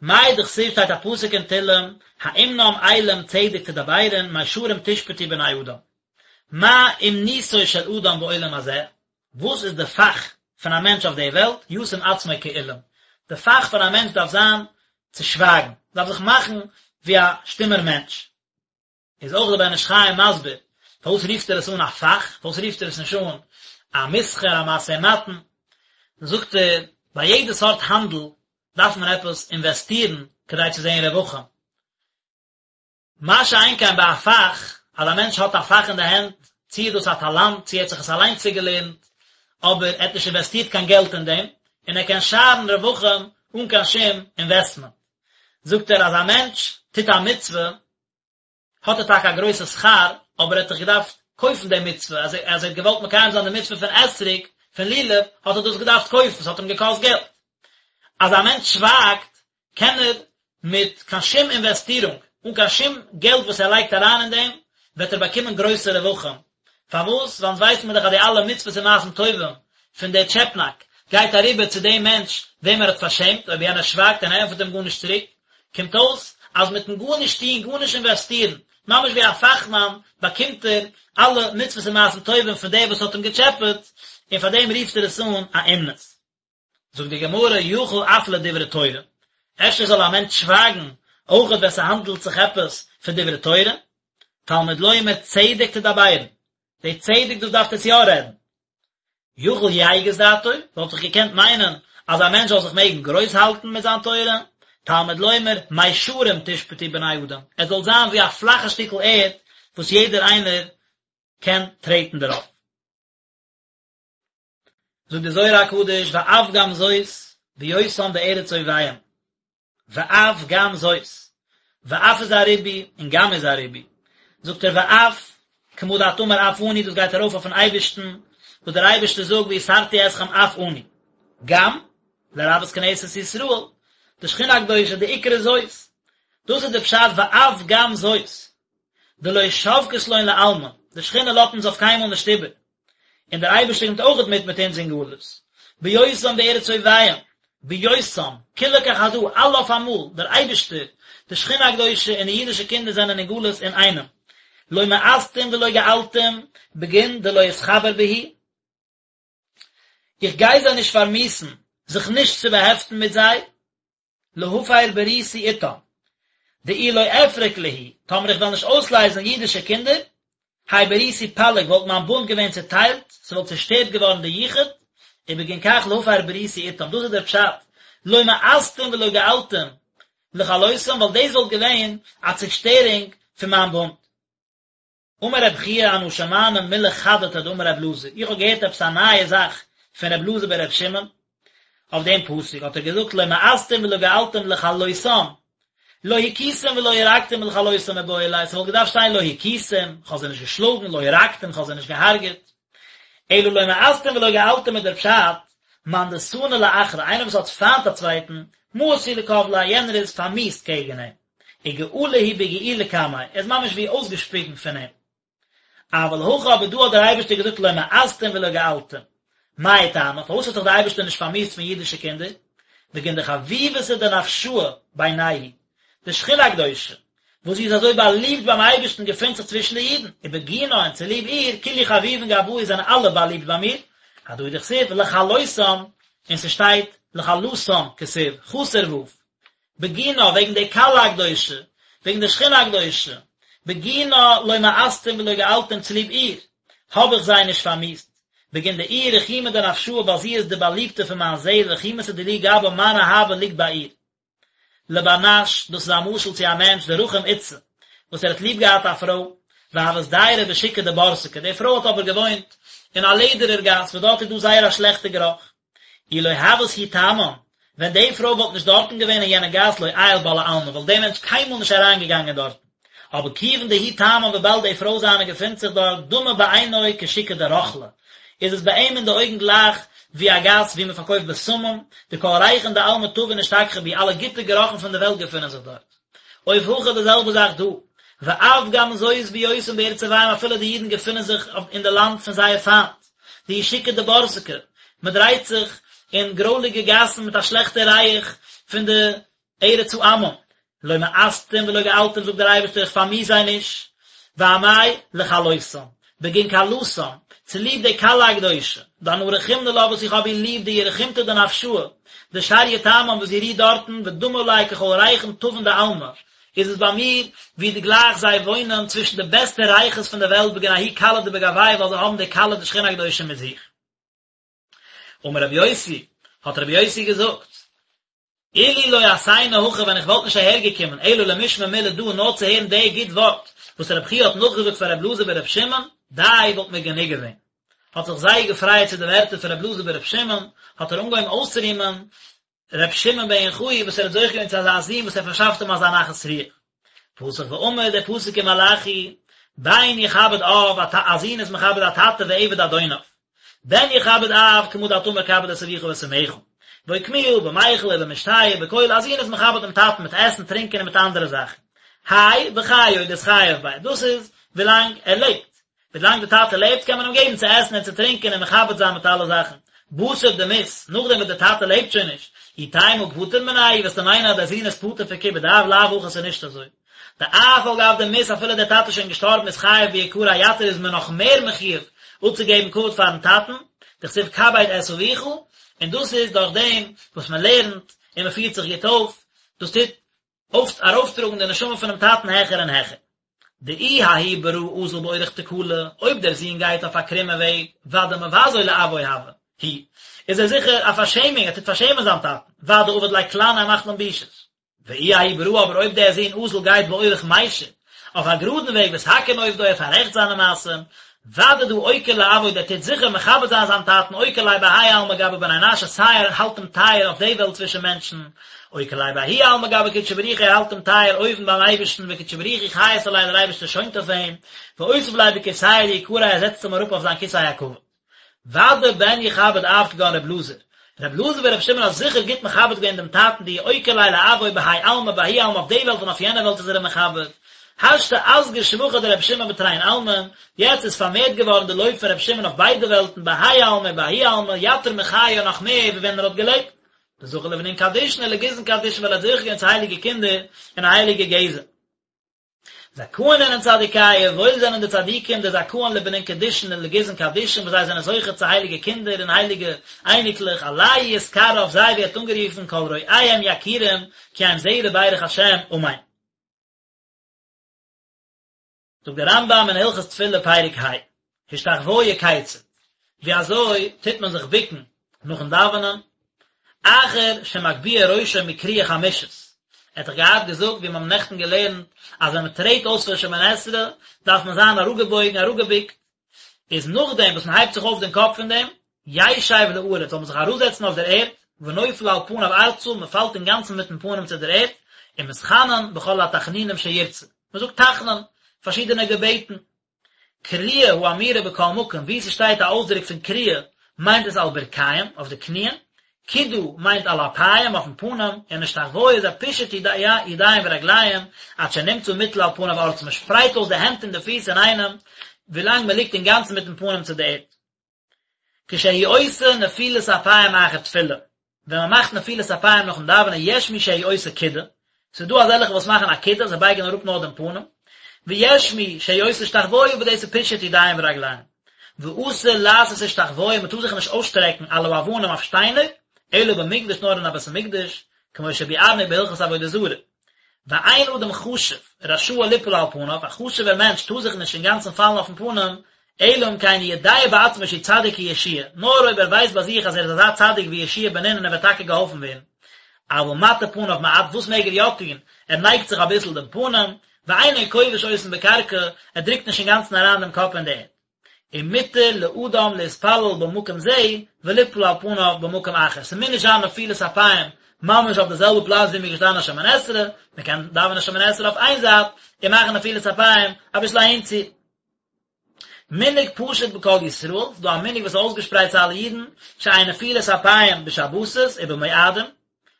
מאי דכתיב שטייט א פסוק אין תהלים, האמנם אלים צדק תדברון מישרים תשפטו בני אדם. מה אומנותו של אדם בעולם הזה, וואס איז די פאך פון א מענטש אויף די וועלט, ישים עצמו כאולם, די פאך פון א מענטש דארף זיין צו שווייגן, דארף זיך מאכן ווי א שטומער מענטש. איז אויך דער בן איש חי מסביר פארוואס רופט ער עס אן א פאך, פארוואס רופט ער עס נישט אן א מסחר, א משא ומתן, זאגט ער, ביי יעדע סארט האנדל דארף מען עפעס אינוועסטירן כדי צו זען רווחים, מה שאין כן ביי א פאך, אז א מענטש האט א פאך אין די הענט, צי איז דאס א טאלאנט, צי ער האט זיך עס אליין צוגעלערנט, אבער ער האט נישט אינוועסטירט קיין געלט אין דעם, און ער קען שארן רווחים אן קיין שום אינוועסטמענט. זאגט ער אז א מענטש טוט א מצוה, האט ער טאקע א גרויסע שכר, אבער ער האט דאך געדארפט קויפן די מצוה, אז ער האט געוואלט מקיים זיין די מצוה פון אתרוג, פון לולב, האט ער דאס געדארפט קויפן, ס'האט אים געקאסט געלט. אז א מענטש שווייגט, קען ער מיט קיין שום אינוועסטירונג, אן קיין שום געלט וואס ער לייגט אריין אין דעם, וועט ער באקומען גרויסע רווחים. פארוואס? ווייל אונז ווייסן מיר דאך אז די אלע מצוות און מעשים טובים פון דער טשעפנאק גייט אריבער צו דעם מענטש וועם ער האט פארשעמט, אויב יענער שווייגט און ער ענטפערט אים גארנישט צוריק, קומט אויס אז מיטן גארנישט טון, גארנישט אינוועסטירן, ממש ווי א פאכמאן, באקומט ער אלע מצוות און מעשים טובים פון דער וואס האט אים געטשעפעט, און פאר דעם רופט ער עס אן א אומנות. זאגט די גמרא, יכול אף לדברי תורה, אפשר זאל א מענטש שווייגן אויכעט ווען ס'האנדלט זיך עפעס פון דברי תורה, תלמוד לומר צדק תדברון, די צדק דאס דארפט עטס יא רעדן. יכול יגיס דעתו, וואלט איך געקענט מיינען אז א מענטש זאל זיך מעגן גרויס האלטן מיט זיין תורה, תלמוד לומר מישרים תשפטו בני אדם, עס זאל זיין ווי א פלאכע שטיקל ערד וואס יעדער איינער קען טרעטן דערויף. זאגט די זוהר הקדוש ואף גם זאת בהיותם בארץ אויביהם, ואף גם זאת, ואף איז א ריבוי און גם איז א ריבוי, זאגט ער ואף, כמה דאת אמר אף אני דאס גייט ארויף אויפן אייבערשטן, וואס דער אייבערשטער זאגט ויסרתי אתכם אף אני, גם, לרבות כנסת ישראל, די שכינה הקדושה די עיקר זאת, דאס איז די פשט ואף גם זאת, דלא שבקת לון לעלמא, די שכינה לאזט אונז אויף קיינמאל נישט איבער, און דער אייבערשטער קומט אויכעט מיט מיט אונז אין גלות, בהיותם בארץ אויביהם, בהיותם, כולא כחדא, אלע אויף אמאל, דער אייבערשטער, די שכינה הקדושה און די אידישע קינדער זענען אין גלות אינאיינעם. לא מאסתים ולא געלתים בגין דלא אתחבר בהו, איך גיי זיי נישט פארמיאוסן זיך נישט צו באהעפטן מיט זיי, להפר בריתי אתם, דאי לא אפרק להו, טאמער איך וועל נישט אויסלייזן אידישע קינדער, האי בריתי פליג וואלט מיין בונד געווען צוטיילט, ס'וואלט צושטערט געווארן די יחוד, ובגין כך להפר בריתי אתם, דאס איז דער פשט, לא מאסתים ולא געלתים לכלותם, ווייל דאס וואלט געווען א צושטערונג פון מיין בונד. אמר רב חייא אנא שמענא מילי חדתא דאמר רב אלעזר, איך האב געהערט עפעס א נייע זאך פון רב אלעזר בן רב שמעון, אויף דעם פסוק האט ער געזאגט לא מאסתים ולא געלתים לכלותם, לא הכיתם ולא הרגתם לכלותם מיבעי ליה, ס'וואלט געדארפט שטיין לא הכיתם, כ'האב זיי נישט געשלאגן, לא הרגתם, כ'האב זיי נישט געהארגעט. אלא לא מאסתים ולא געלתים איז דער פשט, מאן דסני לאחרא, איינער וואס האט פיינט א צווייטן, מאיס הוא לקבליה, יענער איז פארמיאוסט קעגן אים. וגעלא הוא בגיעולא קמיה, ער איז ממש ווי אויסגעשפיגן פון אים. אבל הכא אבער דא האט דער אייבערשטער געזאגט לא מאסתים ולא געלתים. מאי טעמא, פארוואס האט זיך דער אייבערשטער נישט פארמיאוסט פון אידישע קינדער? בגין דחביבתא דנפשא בינייהו, די שכינה הקדושה, וואס זי איז אזוי באליבט ביים אייבערשטן געפינט זיך צווישן די אידן, ובגינה און צוליב איר, כולהו חביבין גבאי זענען אלע באליבט ביי מיר, הדא הוא דכתיב לכלותם, און ס'שטייט לכלתם כתיב, חסר ו', בגינה, וועגן די כלה הקדושה, וועגן די שכינה הקדושה, בגינה לא מאסתים ולא געלתים צוליב איר, האב איך זיי נישט פארמיאוסט, בגין דאיהי רחימא דנפשא ווייל זי איז די באליבטע פון מיין זעהל רחימותא דילי גבה מיין אהבה ליגט ביי איר. לבר נש, דאס איז א משל צו א מענטש דרחים אתתא, וואס ער האט ליב געהאט א פרוי, והות דיירא בשוקא דבורסקי, די פרוי האט אבער געוואוינט אין א לעדערער גאס וואס דארט איז דא זייער א שלעכטע גערוך, אי לא הות היא תמן, ווען די פרוי וואלט נישט דארטן געווען אין יענע גאס לא עייל בה לעלמין וואלט דער מענטש קיינמאל נישט אריינגעגאנגען דארטן, אבער כיוון דהיא תמן וויבאלד די פרוי זיינע געפינט זיך דארט דמי בעינוי כשוקא דרוכלא, איז עס ביי אים אין די אויגן גלייך ווי א גאס וואו מען פארקויפט בשמים, דכל ריחין דעלמא טבין אשתכחו בהו, אלע גוטע גערוכן פון די וועלט געפינען זיך דארט. אוף הכא די זעלבע זאך דא, ואף גם זאת בהיותם בארץ אויביהם אפילו די אידן געפינען זיך אין די לאנד פון זייער פיינט, דהוא שוקא דבורסקי, מען דרייט זיך אין גרויליגע גאסן מיט א שלעכטע ריח פון די ארץ העמים, לא מאסתים ולא געלתים זאגט דער אייבערשטער איך פארמיאוס זיי נישט, ואמאי לכלותם, בגין כלתם, צוליב די כלה הקדושה, דאנא רחימנא לה וואס איך האב איר ליב דאיהי רחימתא דנפשא, דשריא תמן וואס זי רוהט דארטן ודמי עלי ככל ריחין טבין דעלמא, איז עס ביי מיר ווי די גלייך זיי וואוינען צווישן די בעסטע ריחות פון די וועלט בגין ההיא כלה דבגוייהו ווייל זיי האבן די כלה די שכינה הקדושה מיט זיך. אמר רבי יוסי, האט רבי יוסי געזאגט, אילו לא אתינא הכא ווען איך וואלט נישט אהער געקומען אלא למשמע מילי דא נאר צו הערן די גוט ווארט וואס רב חייא האט נאכגעזאגט פאר רב אלעזר ברב שמעון, די וואלט מיר גענוג געווען. האט זיך זייער געפרייעט צו די ווערטער פון רב אלעזר ברב שמעון, האט ער אנגעהויבן אויסצורימען ר' שמעון בן יוחאי וואס ער האט זוכה געווען צו אזא זון וואס ער פארשאפט אים אזא נחת רוח. פתח ואמר דער פסוק אין מלאכי, בן יכבד אב, א זון איז מכבד א טאטע ועבד אדוניו. בן יכבד אב, כמה דאת אמר כבד את אביך ואת אמך. ואוקמוה במיכל ובמשתה ובכל, א זון איז מכבד דעם טאטן מיט עסן, טרינקען און מיט אנדערע זאכן. האי בחיי דאתחייב ביה, דאס איז ווילאנג ער לעבט. ווילאנג די טאטע לעבט קען מען אים געבן צו עסן און צו טרינקען און מכבד זיין מיט אלע זאכן. בתר דמית, נאכדעם וואס די טאטע לעבט שוין נישט, אי תימא פטור מיניה, וועסטו מיינען אז דער זון איז פטור פון כיבוד אב, לאו הכי ס'איז נישט אזוי. דאף על גב דמית אפילו דער טאטע איז שוין געשטארבן אתחייב ביקריה יתיר איז מען נאך מער מחויב אפצוגעבן כבוד פארן טאטן, דכתיב כבד את אביך, און דאס איז דורך דעם וואס מען לערנט און מען פירט זיך גוט אויף, דאס טוט אויף ארויפטראגן די נשמה פונעם טאטן העכער און העכער. דאי ההוא ברא אזיל באורח תקלא, אויב דער זון גייט אויף א קרומע וועג, ודאי מבזוי לאבוי הוה, הוא, איז ער זיכער א פארשעמונג, ער טוט פארשעמען זיין טאטן, ודאי עביד ליה קלנא ער מאכט אים בושות. ואי ההוא ברא אבער אויב דער זון אזיל גייט באורח מישר, אויף א גראדן וועג ותקין עובדוי ער פאררעכט זיינע מעשים, ודאי דהא אוקיר לאבוי דער טוט זיכער מכבד זיין זיין טאטן אוקיר ליה בהאי עלמא גבי בני נשא סיי ער האלט אים טייער אויף די וועלט צווישן מענטשן, אוקיר ליה בההוא עלמא גבי קודשא בריך הוא ער האלט אים טייער אויבן ביים אייבערשטן וקודשא בריך הוא חייס עליה דער אייבערשטער שוינט אויף אים, ואותיב ליה בכורסייה דיקריה ער זעצט אים אראפ אויף זיין כסא הכבוד. ודאי בן יכבד אב כגון רב אלעזר, רב אלעזר ברב שמעון האט זיכער גוט מכבד געווען דעם טאטן דאיהו אוקיר ליה לאבוי בהאי עלמא בההוא עלמא אויף די וועלט און אויף יענע וועלט איז ער אים מכבד. השתא אסגי שבחא דרב שמעון בתרין עלמין, יעצט איז פארמערט געווארן די לויב פון רב שמעון אויף ביידע וועלטן בהאי עלמא ובההוא עלמא יתיר מחיי נאך מער ווי ווען ער האט געלעבט. דזכה לבנין קדישין ולגזען קדישין ווייל ער האט זוכה געווען צו הייליגע קינדער און א הייליגע גזע. זכאין אינון צדיקיא, וואויל זענען די צדיקים, דזכאין לבנין קדישין און לגזען קדישין, וואס זיי זענען זוכה צו הייליגע קינדער און הייליגע אייניקלעך, עלייהו יתקרי אויף זיי ווערט אנגערופן כל רואיהם יכירום, כי הם זרע ברך השם, אמן. זאגט דער רמב"ם אין הלכות תפילה פרק ה, השתחוויה כיצד, ווי אזוי טוט מען זיך בוקן נאכן דאווענען, אחר שמגביה ראשו מכריעה חמישית, ער האט דאך געהאט געזאגט ווי מיר האבן נעכטן געלערנט אז ווען מען טרעט אויס פון שמונה עשרה דארף מען זיין אראפגעבויגן אראפגעבוקט, איז נאכדעם וואס מען הייבט זיך אויף דעם קאפ פון דעם, ישב לארץ, זאל מען זיך אראפזעצן אויף דער ערד, ונופל על פניו ארצה, מען פאלט אינגאנצן מיטן פנים צו דער ערד, ומתחנן בכל התחנונים שירצה, מען זאגט תחנון, פארשידענע געבעטן. כריעה האמורה בכל מקום, וואו ס'שטייט א אויסדרוק פון כריעה, מיינט עס על ברכיים, אויף די קניען, קידה מיינט על אפיים, אויפן פנים, און השתחוויה איז א פישוט ידיים ורגליים, עד שנמצא מוטל על פניו ארצה, מען שפרייט אויס די הענט און די פיס אינאיינעם, ווילאנג מען ליגט אינגאנצן מיטן פנים צו די ערד. כשהוא עושה נפילת אפיים אחר תפילה, ווען מען מאכט נפילת אפיים נאכן דאווענען יש מי שהוא עושה קידה, ס'איז דא אזעלכע וואס מאכן א קידה, זיי בייגן אראפ נאר דעם פנים, ויש מי שהוא עושה השתחוויה וואס דאס איז פישוט ידיים ורגליים. ואסור לעשות השתחוויה, מען טאר זיך נישט אויסשטרעקן על האבנים אויף שטיינער, אלא במקדש נאר אין א בית המקדש, כמו שביארנו בהלכות עבודה זרה. ואין אדם חשוב רשאי ליפול על פניו, א חשוב'ער מענטש טאר זיך נישט אינגאנצן פאלן אויפן פנים, אלא אם כן יודע בעצמו שהוא צדיק כיהושע, נאר אויב ער ווייסט ביי זיך אז ער איז אזא צדיק ווי יהושע בן נון און ער וועט טאקע געהאלפן ווערן. אבל מטה פניו מעט, וואס מעג ער יא טון? ער נייגט זיך אביסל דעם פנים, ואינו כובש אותן בקרקע, ער דרוקט נישט אינגאנצן אריין דעם קאפ אין די ערד. ומותר לאדם להתפלל במקום זה וליפול על פניו במקום אחר, ס'מוז נישט זיין נפילת אפיים ממש אויף די זעלבע פלאץ ווי מ'איז געשטאנען שמונה עשרה, מ'קען דאווענען שמונה עשרה אויף איין זייט און מאכן נפילת אפיים אביסל אהינצו. מנהג פשוט בכל ישראל, ס'איז דא א מנהג וואס איז אויסגעשפרייט צו אלע אידן, שאין נפילת אפיים בשבתות ובמועדים,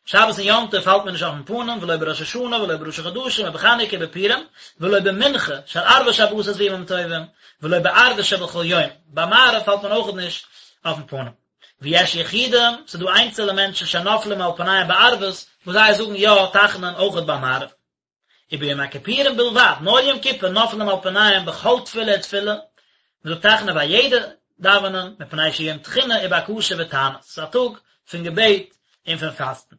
שבת און יום טוב פאלט מען נישט אויפן פנים, ולא בראש השנה ולא בראשי חדשים ובחנוכה ובפורים, ולא במנחה של ערבי שבתות וימים טובים, ולא בערבית שבכל יום, ביי מעריב פאלט מען אויכעט נישט אויפן פנים. ויש יחידים, ס'איז דא איינצעלע מענטשן שנופלים על פניהם בערבית, וואס זיי זאגן יא תחנון אויכעט ביי מעריב. וביום הכיפורים בלבד, נאר יום כיפור נופלים על פניהם בכל תפילה ותפילה, מען זאגט תחנון ביי יעדע דאווענען, מפני שהוא יום תחינה ובקשה ותענית, ס'איז א טאג פון געבעט און פון פאסטן.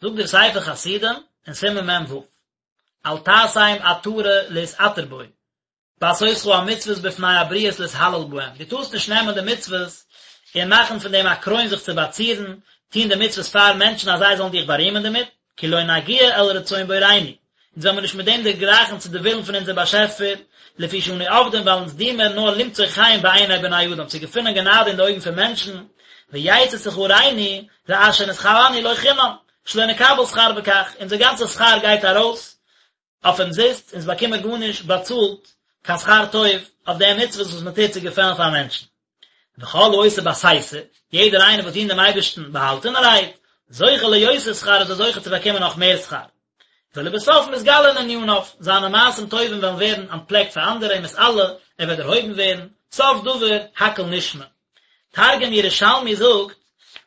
זאגט דער ספר חסידים אין סימן מ"ו, אל תעשם עטרה להתעטר בו, בעשותך המצוות בפני הבריות להתהלל בהם, דו טארסט נישט נעמען די מצוות און מאכן פון דעם א קרוין זיך צו באצירן, טון די מצוות פאר מענטשן אז זיי זאלן דיך בארימען דערמיט, כי לא נגיע אל רצון בוראינו, אונז וועלן מיר נישט מיט דעם דערגרייכן צו די ווילן פון אונזער באשעפער, לפי שאנו עובדים ווייל אונז דינען מיר נאר למצוא חן בעיני בני אדם, צו געפינען גענאדע אין די אויגן פון מענטשן, ויצא שכרנו לאשר נתכוונו לו חינם, שלא נקבל שכר בכך, אונזער גאנצע שכר גייט ארויס אויף אומזיסט, אונז באקומען גארנישט באצאלט קיין שכר טוב אויף די מצוות וואס מען טוט צו געפעלן פאר מענטשן. וכל העושה בסתר, יעדער איינער וואס דינט דעם אייבערשטן באהאלטענערהייט, זוכה ליותר שכר איז ער זוכה צו באקומען נאך מער שכר. ולבסוף מתגלין עניניו, זיינע מעשים טובים וועלן ווערן אנטפלעקט פאר אנדערע ומתעלה, ער וועט דערהויבן ווערן, סוף דבר הכל נשמע. תרגום ירושלמי זאגט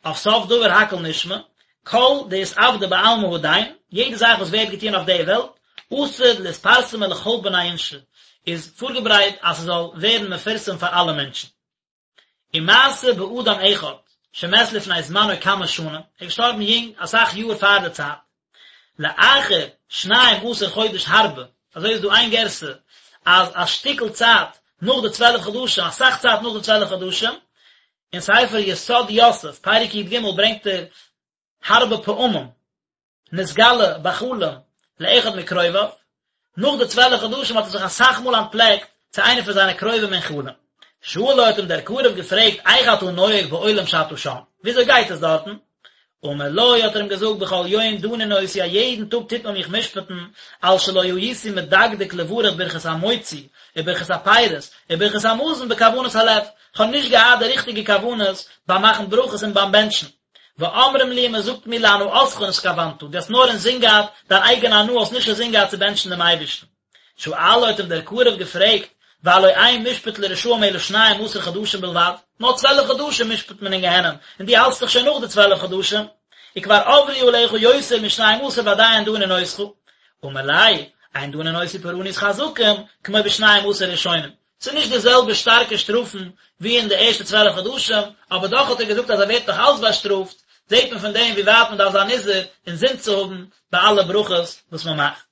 אויף סוף דבר הכל נשמע, כל דאתעבדא בעלמא הדין, יעדע זאך וואס ווערט געטון אויף די וועלט, עתיד לאתפרסמא לכל בני אינשי, איז פארגעברייט אז ס'זאל ווערן מפורסם פאר אלע מענטשן. ומעשה באדם אחד שמת לפני זמנו כמה שנים, ער איז געשטארבן יונג, אסאך יאר פאר די צייט, לאחר שניים עשר חודש הרבה, אזוי איז דא איין גירסא אז א שטיקל צייט נאך די צוועלף חדשים, אסאך צייט נאך די צוועלף חדשים, אין ספר יסוד יוסף, פרק י"ג ברענגט ער הרבה פעמים נתגלה בחלום לאחד מקרוביו, נאך די צוועלף חדשים האט ער זיך אסאך מאל אנטפלעקט צו איינער פון זיינע קרובים אין חלום. שאלו האט אים דער קרוב געפרעגט איך אתה נוהג בעולם שאתה שם, וויאזוי גייט עס דארטן? אמר לו האט ער אים געזאגט בכל יום דנין אותי א יעדן טאג טוט מען מיך משפט'ן על שלא הייתי מדקדק לברך ברכת המוציא וברכת הפירות וברכת המזון בכוונת הלב, כ'האב נישט געהאט די ריכטיגע כוונות ביים מאכן ברכות און ביים בענטשן. ואומרים לי און מען זאגט מיר להנאתך נתכוונת, דו האסט נאר אינזין געהאט דיין אייגענע הנאה, האסט נישט אינזין געהאט צו בענטשן דעם אייבערשטן. שאלו האט אים דער קרוב געפרעגט, והלא אין משפט לרשעים אלא שניים עשר חדשים בלבד, נאר צוועלף חדשים משפט מען אין גיהנום, און דו האלטסט דאך שוין נאך די צוועלף חדשים, וכבר עברו עליך יותר משניים עשר ועדיין דנין אותך. אמר ליה, אין דנין אותו פורענות חזקים, כמו בשנים עשר ראשונים. ס'איז נישט די זעלבע שטארקע שטראפן ווי אין די ערשטע 12 חדשים, אבער דאך האט ער געזאגט אז ער ווערט נאך אלץ באשטראפט, זעט מען פון דעם ווי ווייט מען דארף זיין נזהר אינזין צו האבן ביי אלע ברכות וואס מען מאכט.